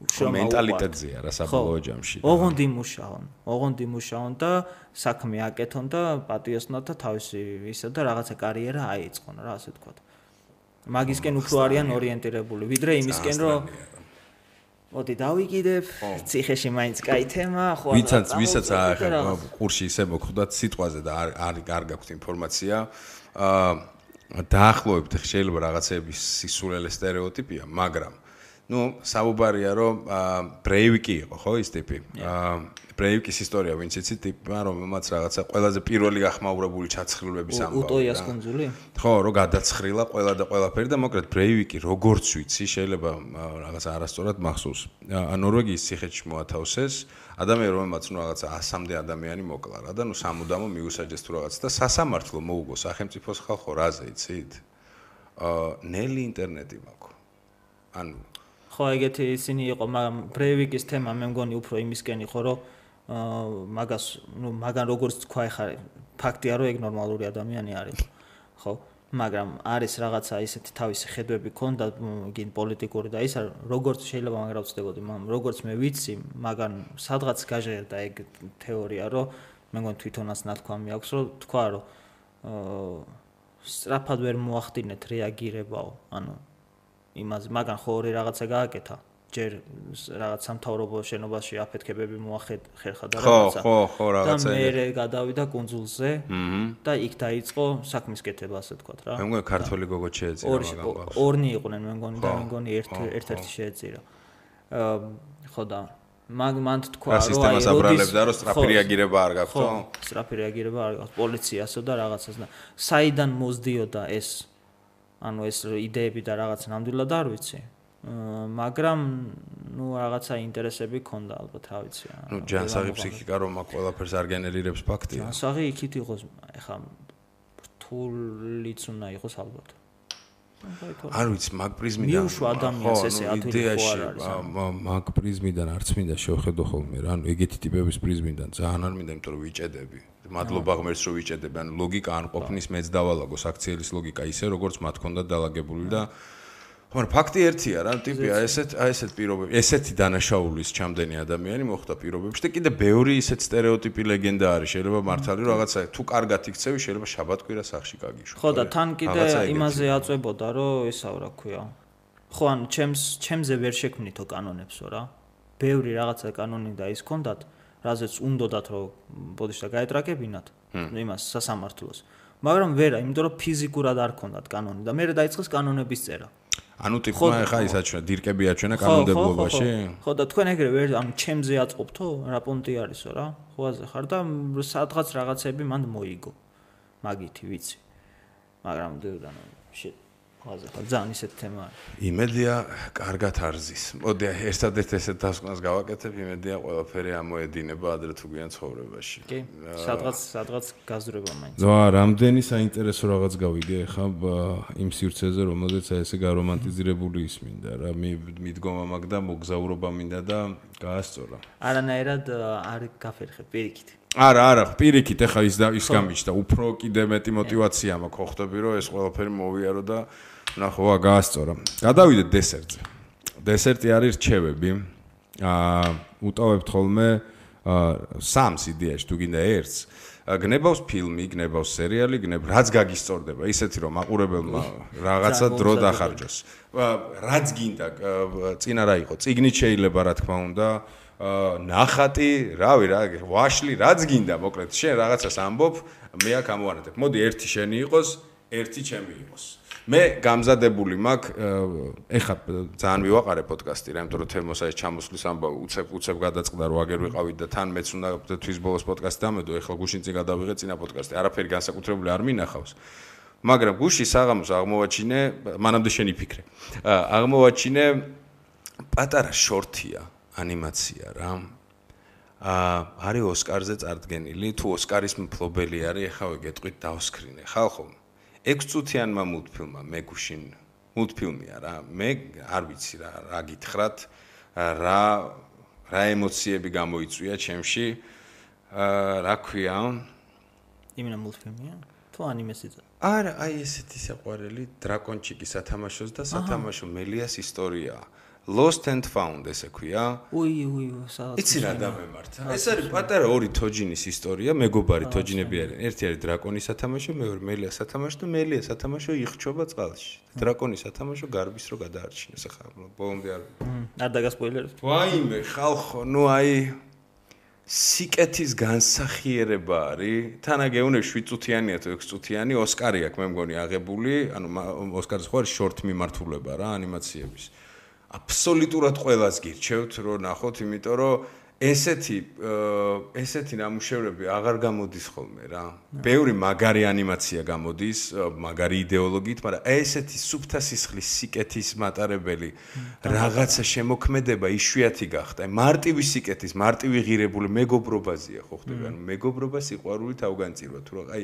[SPEAKER 2] მენტალიტეტზეა რა საბოლოო ჯამში.
[SPEAKER 3] ოღონდ იმუშაონ და საქმე აკეთონ და პატიოსნოთ და თავისი ისა და რაღაცა კარიერა აიწყონ რა, ასე ვთქვათ. მაგისკენ უფრო არიან ორიენტირებული, ვიდრე იმისკენ რომ მოდი დავიკიდებ, ციხეში მაინც კაი თემა, ხო.
[SPEAKER 2] ვისაც ყურში ისე მოხვდათ სიტყვაზე და არ გაქვთ ინფორმაცია, დაახლოებით შეიძლება რაღაცების სისულელე სტერეოტიპია, მაგრამ ნუ საუბარია რომ ბრეივიკი იყო ხო ის ტიპი ბრეივიკის ისტორია ვინც იცით ტიპმა რომელმაც რაღაცა ყველაზე პირველი გახმაურებული ჩაცხრილების ამბავი
[SPEAKER 3] უტოიას კუნძული
[SPEAKER 2] ხო რომ გადაცხრილა ყველა და ყველაფერი და მოკლედ ბრეივიკი როგორც ვიცი შეიძლება რაღაცა არასწორად მახსოვს ნორვეგიის ციხეში მოათავსეს ადამიანი რომელმაც ნუ რაღაცა 100-მდე ადამიანი მოკლა რა და ნუ სამუდამო მიუსაჯეს თუ რაღაც და სასამართლო მოუგო სახელმწიფოს ხალხო რაზე იცით ნელი ინტერნეტი მაქვს ანუ
[SPEAKER 3] ხო ეგეთი ისინი იყო მაგრამ ბრეივიკის თემა მე მგონი უფრო იმისკენ იყო რომ მაგას ნუ მაგან როგორც თქვა ეხა ფაქტია რომ ეგ ნორმალური ადამიანი არის ხო მაგრამ არის რაღაცა ისეთი თავისი ხედვები ქონდა გინ პოლიტიკური და ისა როგორც შეიძლება მაგრამ ვწდებოდი მაგრამ როგორც მე ვიცი მაგან სადღაც გაჟღერდა ეგ თეორია რომ მე მგონი თვითონაც ნათქვამი აქვს რომ თქვა რომ სწრაფად ვერ მოახდინეთ რეაგირებაო ანუ იმაზე მაგან ხო ორი რაღაცა გააკეთა ჯერ რაღაც სამთავრობო შენობაში აფეთქებები მოახერხა და რაღაცა
[SPEAKER 2] ხო რაღაცა
[SPEAKER 3] და მე გადავიდა კუნძულზე და იქ დაიწყო საქმის კეთება ასე ვთქვათ რა
[SPEAKER 2] მე მგონი ქართველი გოგო შეეწირა
[SPEAKER 3] მაგან ორნი იყვნენ მე მგონი და მე მგონი ერთ-ერთი შეეწირა ხო და მან თქვა რომ
[SPEAKER 2] სისტემას აბრალებდა რომ სწრაფი რეაგირება არ გაქვს ხო
[SPEAKER 3] სწრაფი რეაგირება არ გაქვს პოლიციასო და რაღაცას და საიდან მოსდიოდა ეს ანუ ეს იდეები და რაღაც ნამდვილად არ ვიცი მაგრამ ნუ რაღაცა ინტერესები ქონდა ალბათ რა ვიცი
[SPEAKER 2] ნუ ჯანსაღი ფსიქიკა რომ აქ ყველაფერს არ გენერირებს ფაქტია
[SPEAKER 3] ჯანსაღი იქით იყოს ეხა რთულიც უნდა იყოს ალბათ
[SPEAKER 2] არ ვიცი მაგ პრიზმიდან
[SPEAKER 3] მიუშვა ადამიანს ესე ათვილი ხო არ არის
[SPEAKER 2] მაგ პრიზმიდან არც მინდა შევხედო ხოლმე რა ანუ ეგეთი ტიპების პრიზმიდან ძალიან არ მინდა იმიტომ რომ ვიჭედები მადლობა ღმერთს რომ ვიჭედები ანუ ლოგიკა არ ყოფნის მეც დავალაგოს აქციელის ლოგიკა ისე როგორც მათ ქონდა დალაგებული და მაგრამ ფაქტი ერთია რა ტიპია ესეთ პირობები ესეთი დანაშაულის ჩამდენი ადამიანი მოხდა პირობებში და კიდე ბევრი ისეთ სტერეოტიპი ლეგენდა არის შეიძლება მართალი რაღაცა თუ კარგად იქცევი შეიძლება შაბათკვირა სახში გაგიშვი
[SPEAKER 3] ხო და თან კიდე იმაზე აწვებოდა რომ ესა რა ქვია ხო ანუ ჩემზე ვერ შექმნითო კანონებსო რა ბევრი რაღაცა კანონი და ის ქონდათ რაზეც უნდათ რომ ბოდიშ და გაეტრაკებინათ იმას სასამართლოს მაგრამ ვერა იმიტომ რომ ფიზიკურად არ ქონდათ კანონი და მე დაიწყეს კანონების წერა
[SPEAKER 2] ანუ ტიპმა ეხა ის აჩვენა დირკები აჩვენა კანონმდებლობაში
[SPEAKER 3] ხო და თქვენ ეგრევე ვერ ანუ ჩემზე აწყობთო რა პონტი არისო რა ხოაზე ხარ და სადღაც რაღაცები მანდ მოიგო მაგითი ვიცი მაგრამ დედანო ხოაზე ხარ ძალიან ისეთ თემა არის
[SPEAKER 2] იმედია კარგად არზის მოდი ერთადერთ ესეთ დასკვნას გავაკეთებ იმედია ყველაფერი ამოედინება ადრე თუ გვიან ცხოვრებაში
[SPEAKER 3] კი სადღაც გაზრება მაინც
[SPEAKER 2] ზო რამდენი საინტერესო რაღაც გავიგე ხა იმ სივრცეზე რომელზეც ესე გარომანტიზირებული ისმინდა რა მიდგომა მაგ და მოგზაურობა მინდა და გაასწორა
[SPEAKER 3] არანაირად არ გაფერხე პირიქით
[SPEAKER 2] არა პირიქით ეხა ის გამიჩნდა უფრო კიდე მეტი мотиваცია მაქვს ხო ხვდები რომ ეს ყველაფერი მოვიარო და ნახოა გაასწორა გადავიდეთ დესერტზე დესერტი არის რჩევები უტოვებთ ხოლმე სამს იდეაში თუ გინდა ერთს გნებავს ფილმი გნებავს სერიალი რაც გაგისწორდება ისეთი რომ მაყურებელმა რაღაცა დრო დახარჯოს რაც გინდა წინა რა იყო წიგნით შეიძლება რა თქმა უნდა ნახატი რავი რა ვაშლი რაც გინდა მოკლედ შენ რაღაცას ამბობ მე აქ ამოვანათებ მოდი ერთი შენი იყოს ერთი ჩემი იყოს მე გამზადებული მაქვს ეხა ძალიან მივაყარე პოდკასტი რა იმიტომ რომ თემოსა ეს ჩამოსვლის ამბავი უცებ გადაწყდა რომ აგერ ვიყავით და თან მეც უნდა თვის ბოლოს პოდკასტი დამედო ეხლა გუშინ წინ გადავიღე წინა პოდკასტი არაფერი განსაკუთრებული არ მინახავს მაგრამ გუში საღამოს აღმოვაჩინე მანამდე შენი ფიქრე აღმოვაჩინე პატარა შორტია ანიმაცია რა არის ოსკარზე წარდგენილი თუ ოსკარის მფლობელი არის ეხა ვეგეტყვით დავსკრინე ხალხო 6 წუთიანმა მულტფილმმა მე გუშინ მულტფილმია რა მე არ ვიცი რა გითხრათ რა ემოციები გამოიწვია ჩემში რა ქვია
[SPEAKER 3] იმენა მულტფილმია თუ ანიმესიც
[SPEAKER 2] არა აი ესეთი საყვარელი დრაკონჩიკი სათამაშოს და სათამაშო მელიას ისტორიაა Lost and Found ესე ქვია.
[SPEAKER 3] უი, სადაც.
[SPEAKER 2] იცი რა დამემართა. ეს არის პატარა ორი თოჯინის ისტორია, მეგობარი თოჯინები არიან. ერთი არის დრაკონის სათამაშო, მეორე მელიას სათამაშო და მელიას სათამაშო იხჩობა წყალში. დრაკონის სათამაშო გარბის რო გადაარჩინეს ახლა ბოლომდე არ.
[SPEAKER 3] არ დაგასპოილერებ.
[SPEAKER 2] ვაიმე, ხალხო, ნუ აი სიკეთის განსახიერება არის. თანაგეუნე 7 წუთიანია თუ 6 წუთიანი ოსკარი აქვს მე მგონი აღებული, ანუ ოსკარის ხო არის შორტ მიმართულება რა ანიმაციების. აბსოლუტურად ყველას გირჩევთ რომ ნახოთ, იმიტომ რომ ესეთი ნამუშევრები აღარ გამოდის ხოლმე რა. ბევრი მაგარი ანიმაცია გამოდის, მაგარი იდეოლოგიით, მაგრამ ესეთი სუფთა სისხლის სიკეთის მატარებელი რაღაცა შემოქმედება იშვიათი გახდა. მარტივი სიკეთის, მარტივი ღირებული მეგობრობაზია ხო ხდება? მეგობრობა სიყვარული თავგანწირვა თუ რა, აი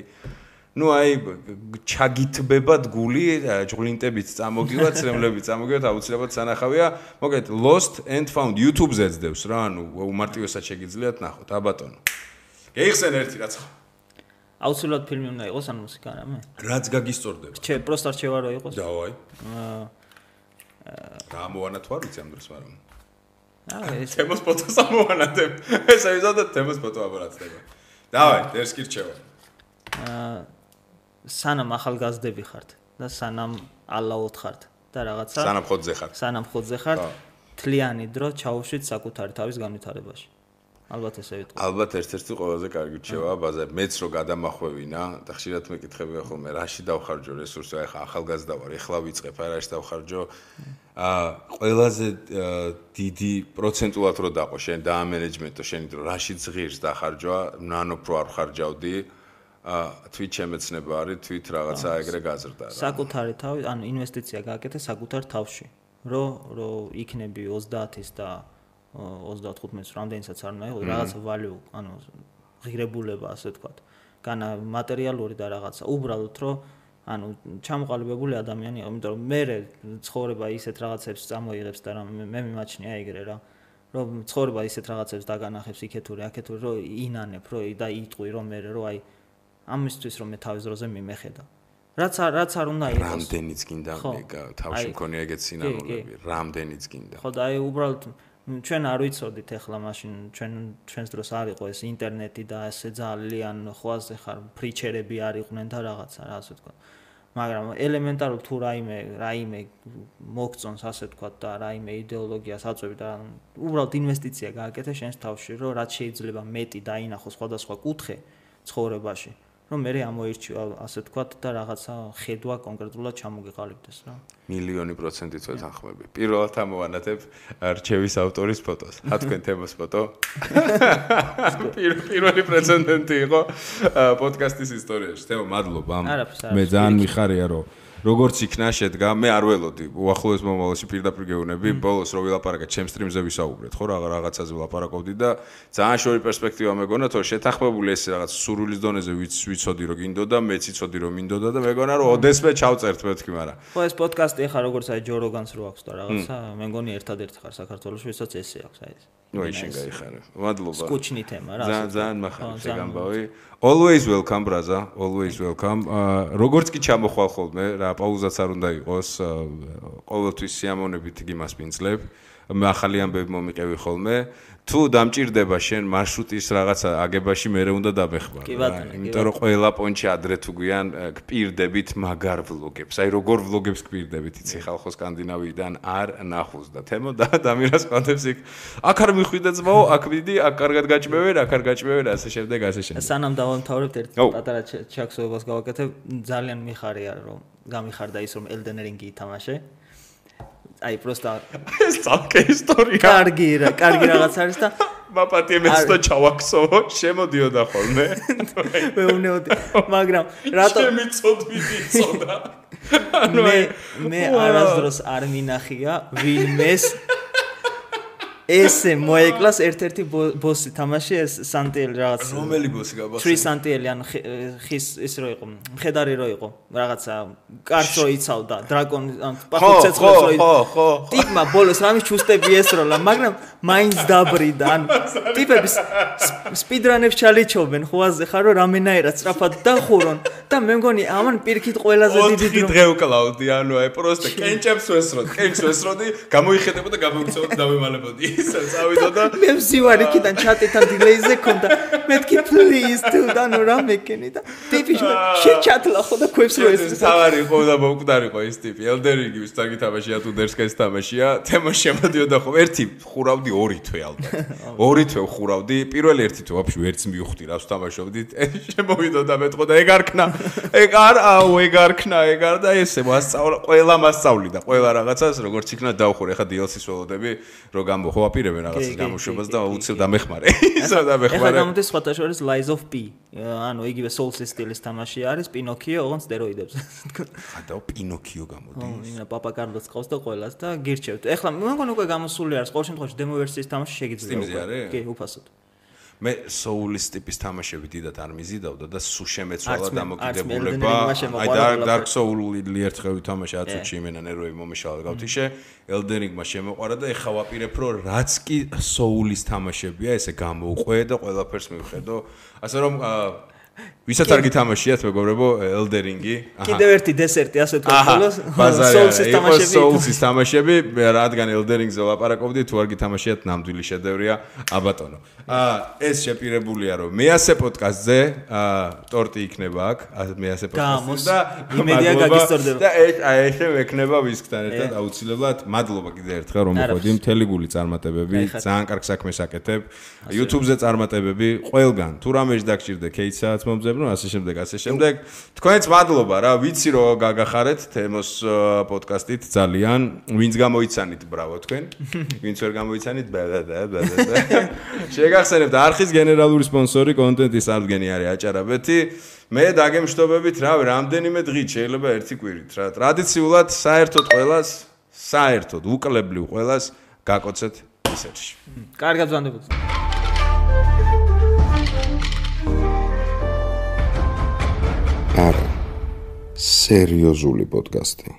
[SPEAKER 2] ჩაგითბებად გული, ჭღლინტებით წამოგივათ, ცრემლებით წამოგივათ, აუცილებლად სანახავია. მოგეთ Lost and Found YouTube-ზე ძდევს რა, უმარტივესად შეგიძლიათ ნახოთ, აბატონო. გეიხსენ ერთი რაც ხო?
[SPEAKER 3] აუცილებლად ფილმი უნდა იყოს ან მუსიკა რამე?
[SPEAKER 2] რაც გაგისწორდება.
[SPEAKER 3] პროსტა რჩევა რო იყოს?
[SPEAKER 2] დავაი. რა მოვანა თუ არ ვიცი ამ დროს, მაგრამ. ეს თემოს ფოტოს ამოვანათებ. ეს ავიზავდა თემოს ფოტო აბარაცდება. დავაი, დერს კი რჩევა.
[SPEAKER 3] სანამ ახალგაზრდები ხართ და სანამ ალაოთ ხართ და რაღაცა სანამ ხოძზე ხართ თლიანი დრო ჩაუშვით საკუთარი თავის განვითარებაში. ალბათ ესე ვიტყვი.
[SPEAKER 2] ალბათ ერთ-ერთი ყველაზე კარგი რჩევაა ბაზარი. მეც რო გადამახვევინა და ხშირად მეკითხებია ხოლმე რაში დავხარჯო რესურსი, აი ხა ახალგაზრდა ვარ, ეხლა ვიწყებ, აი რაში დავხარჯო. ყველაზე დიდი პროცენტულად რო დაყო შენ და ამენეჯმენტო შენი დრო რაში ზღირს დახარჯვა, ნანოფ რო არ ხარჯავდი. თვით შემეცნება არის, თვით რაღაცა ეგრე გაზრდა რა.
[SPEAKER 3] საკუთარი თავი, ანუ ინვესტიცია გააკეთე საკუთარ თავში. რომ იქნები 30-ის და 35-ის რამდენიცაც არ უნდა იყოს, რაღაცა value, ანუ ღირებულება, ასე ვთქვათ. განა მატერიალური და რაღაცა. უბრალოდ რომ ანუ ჩამოყალიბებული ადამიანი იყო, იმიტომ რომ მე ცხოვრება ისეთ რაღაცებს წამოიღებს და მე მიმაჩნია ეგრე რა. რომ ცხოვრება ისეთ რაღაცებს დაგანახებს იქეთური, აქეთური, რომ ინანებ, რომ და იტყვი რომ მე რომ აი ამისთვის რომ მე თავის დროზე მიმეხედა. რაც არ უნდა იყოს.
[SPEAKER 2] რამდენიც გინდა თავში მქონია ეგეთ სინანულები, რამდენიც გინდა.
[SPEAKER 3] ხო და აი უბრალოდ ჩვენ არ ვიცოდით ახლა მაშინ ჩვენს დროს არ იყო ეს ინტერნეტი და ესე ძალიან ხვაზე ხარ ფრიჩერები არ იყვნენ და რაღაცა რა ასე ვთქვა. მაგრამ ელემენტარულ თუ რაიმე მოგწონს ასე ვთქვა და რაიმე იდეოლოგიას აწვევი და უბრალოდ ინვესტიცია გააკეთე შენს თავში, რომ რაც შეიძლება მეტი დაინახო სხვადასხვა კუთხე ცხოვრებაში. რომ მე ამოირჩიო ასე ვთქვათ და რაღაცა ხედვა კონკრეტულად ჩამოგეყალიბდეს რა.
[SPEAKER 2] 1,000,000% ვეთანხმები. პირველად ამოვანათებ რჩევის ავტორის ფოტოს. თქვენ თემოს ფოტო. პირველი პრეცედენტი იყო პოდკასტის ისტორიაში. თემო, მადლობა. მე ძალიან მიხარია რომ როგორც იქნა შედგა, მე არ ველოდი. უახლოეს მომავალში პირდაპირ გეუბნები, ბოლოს რო ვილაპარაკე ჩემს სტრიმზე ვისაუბრეთ, ხო, რაღაცაზე ვილაპარაკობდი და ძალიან შორი პერსპექტივა მეგონა, თორე შეთანხმებული ეს რაღაც სურვილის დონეზე ვიცოდი რომ გინდოდა, მეც იცოდი რომ მინდოდა და მეგონა რომ ოდესმე ჩავწერთ მეთქი, მაგრამ
[SPEAKER 3] ხო ეს პოდკასტი ახლა როგორც აი ჯო როგანს რო აქვს და რაღაცა, მე მგონი ერთადერთი ხარ საქართველოში, ვისაც ესე აქვს აი ეს.
[SPEAKER 2] ნუ შენ გაიხარე. მადლობა.
[SPEAKER 3] სკუჩნი თემა რა.
[SPEAKER 2] ძალიან მახარია შეგამბავი. Always welcome, brother. Always welcome. როგორც კი ჩამოხვალ ხოლმე, რა პაუზაც არ უნდა იყოს. ყოველთვის სიამოვნებით იმას ვინძლებ. მე ახალი ამბები მომიყევი ხოლმე. თუ დამჭირდება შენ მარშრუტის რაღაცა აგებაში, მე უნდა დამეხმარ. იმიტომ რომ ყველა პონჩი ადრე თუ გვიან გპირდებით მაგარ ვლოგებს. აი როგორ ვლოგებს გპირდებით, იცი ხალხო სკანდინავიიდან არ ნახულს და თემო და დამირას ყვანთებს იქ. აქ არ მიხვიდე ძმაო, აქ მიდი, აქ კარგად გაჭმევენ, აქ არ გაჭმევენ, ასე შემდეგ, ასე შემდეგ.
[SPEAKER 3] სანამ დავამთავრებთ ერთ პატარა ჩაქსოვებას გავაკეთებ, ძალიან მიხარია რომ გამიხარდა ის რომ Elden Ring-ი ითამაშე. აი პროსტა
[SPEAKER 2] ეს ცალკე ისტორია.
[SPEAKER 3] კარგი რაღაც არის და
[SPEAKER 2] მაპატიემეც და ჩავაქსოვო, შემოდიოდა ხოლმე.
[SPEAKER 3] მე უნეოდი, მაგრამ რატო
[SPEAKER 2] შემიწოდვიდი წოდა.
[SPEAKER 3] მე არასდროს არ მინახია ვინმეს ესე მოეკლას ერთ-ერთი ბოსი თამაში ეს სანტიელი რაღაც.
[SPEAKER 2] რომელი ბოსი გაბახსენე?
[SPEAKER 3] 3 სანტიელი ან ხის ის რო იყო, მხედარი რო იყო, რაღაცა კარს რო იცავდა, დრაკონი ან პახუც ცეცხლს რო იცავდა. ხო. ტიპმა ბოლოს რამის ჩუსტები ესროლა, მაგრამ მაინც დაბრიდა. ან ტიპების სპიდრანებს ჩალიჩობენ ხვაზე ხარ რომ რამენაერად სწრაფად დახურონ და მე მგონი ამან პირიქით ყველაზე დიდი დრო.
[SPEAKER 2] დღე ვკლავდი, ანუ აი პროსტა კენჭებს ვესროდი, გამოიხედებოდა და გამოვიცავდი დავემალებოდი. ისა წავიდა და
[SPEAKER 3] მე ვზივარ იქიდან ჩატეთან დილეიზე ქონდა. მეთქი please თუ და ნუ რა მეკენი და ტიპი შეჩათლა ხო და ქვევს რო ეს.
[SPEAKER 2] თავარი ხო და მომკვდარიყო ეს ტიპი. ელდერინგი ვისთან გითამაშია თუ დერსკეს თამაშია. თემა შემოდიოდა ხო ერთი ხურავდი ორი თვე ალბათ. ორი თვე ხურავდი. პირველი ერთი თვე ვაფშე ერთს მივხვდი რას თამაშობდით. შემოვიდა და მეტყო და ეგ არ ქნა. ეგ არ ქნა და ესე მასწავლა ყველა მასწავლი და ყველა რაღაცას როგორც იქნა დავხურე. ეხა DLC-ს ველოდები რო გამო აპირებენ რაღაცის გამოშვებას და უცებ დამეხმარე. ისა დამეხმარე.
[SPEAKER 3] ეხლა გამოდის სხვათა შორის Lies of P. ანუ იგივე Souls-ის სტილის თამაში არის, Pinocchio, ოღონდ სტეროიდებს.
[SPEAKER 2] ხადაო Pinocchio გამოდის.
[SPEAKER 3] ინა Papa Carlos ყავს და ყველას და გირჩევთ. ეხლა მე მგონი უკვე გამოსული არის, ყოველ შემთხვევაში დემო ვერსიის თამაში შეგიძლია.
[SPEAKER 2] Steam-ზე არის?
[SPEAKER 3] კი, უფასოდ.
[SPEAKER 2] მე Souls ტიპის თამაშები დიდად არ მიზიდავდა და სულ შემეცვალა დამოკიდებულება. აი Dark Souls-ი ერთხელ ვითამაშე 10 წუთში იმენა ნერვები მომეშალა გავთიშე. Elden Ring-მა შემოყვარა და ეხა ვაპირებ რომ რაც კი Souls-ის თამაშებია, ესე გამოვყვე და ყველაფერს მივხედო. ასე რომ ვისაც არ გითამაშიათ მეგობრებო Elden Ring-ი.
[SPEAKER 3] კიდევ ერთი დესერტი ასე თქვა Souls-ის თამაშები.
[SPEAKER 2] Souls-ის თამაშები, რადგან Elden Ring-ზე ვლაპარაკობდი, თუ არ გითამაშიათ, ნამდვილი შედევრია, აბატონო. ეს შეპირებულია რომ მეასე პოდკასტზე ტორტი იქნება აქ, მეასე პოდკასტზე და
[SPEAKER 3] იმედია გაგისტორდება.
[SPEAKER 2] და ესე მექნება ვისკთან ერთად აუცილებლად. მადლობა კიდევ ერთხელ რომ მოხვედი, მთელი გული წარმატებები, ძალიან კარგ საქმეს აკეთებ. YouTube-ზე წარმატებები, ყველგან თუ რამეში დაგჭირდე кейსსაც მომძებნო, ასე შემდეგ. თქვენც მადლობა რა, ვიცი რომ გაგახარეთ თემოს პოდკასტით ძალიან. ვინც გამოიცანით, ბრავო თქვენ. ვინც ვერ გამოიცანით, შეგახსენებთ არხის გენერალური სპონსორი კონტენტის აღდგენი არის აჭარაბეთი. მე დაგემშვიდობებით, რავი, რამდენიმე დღით შეიძლება ერთი კვირით რა. ტრადიციულად საერთოდ უკლებლივ ყველას გაკოცეთ ისერში.
[SPEAKER 3] კარგად ვანდებოდ.
[SPEAKER 1] არა სერიოზული პოდკასტი.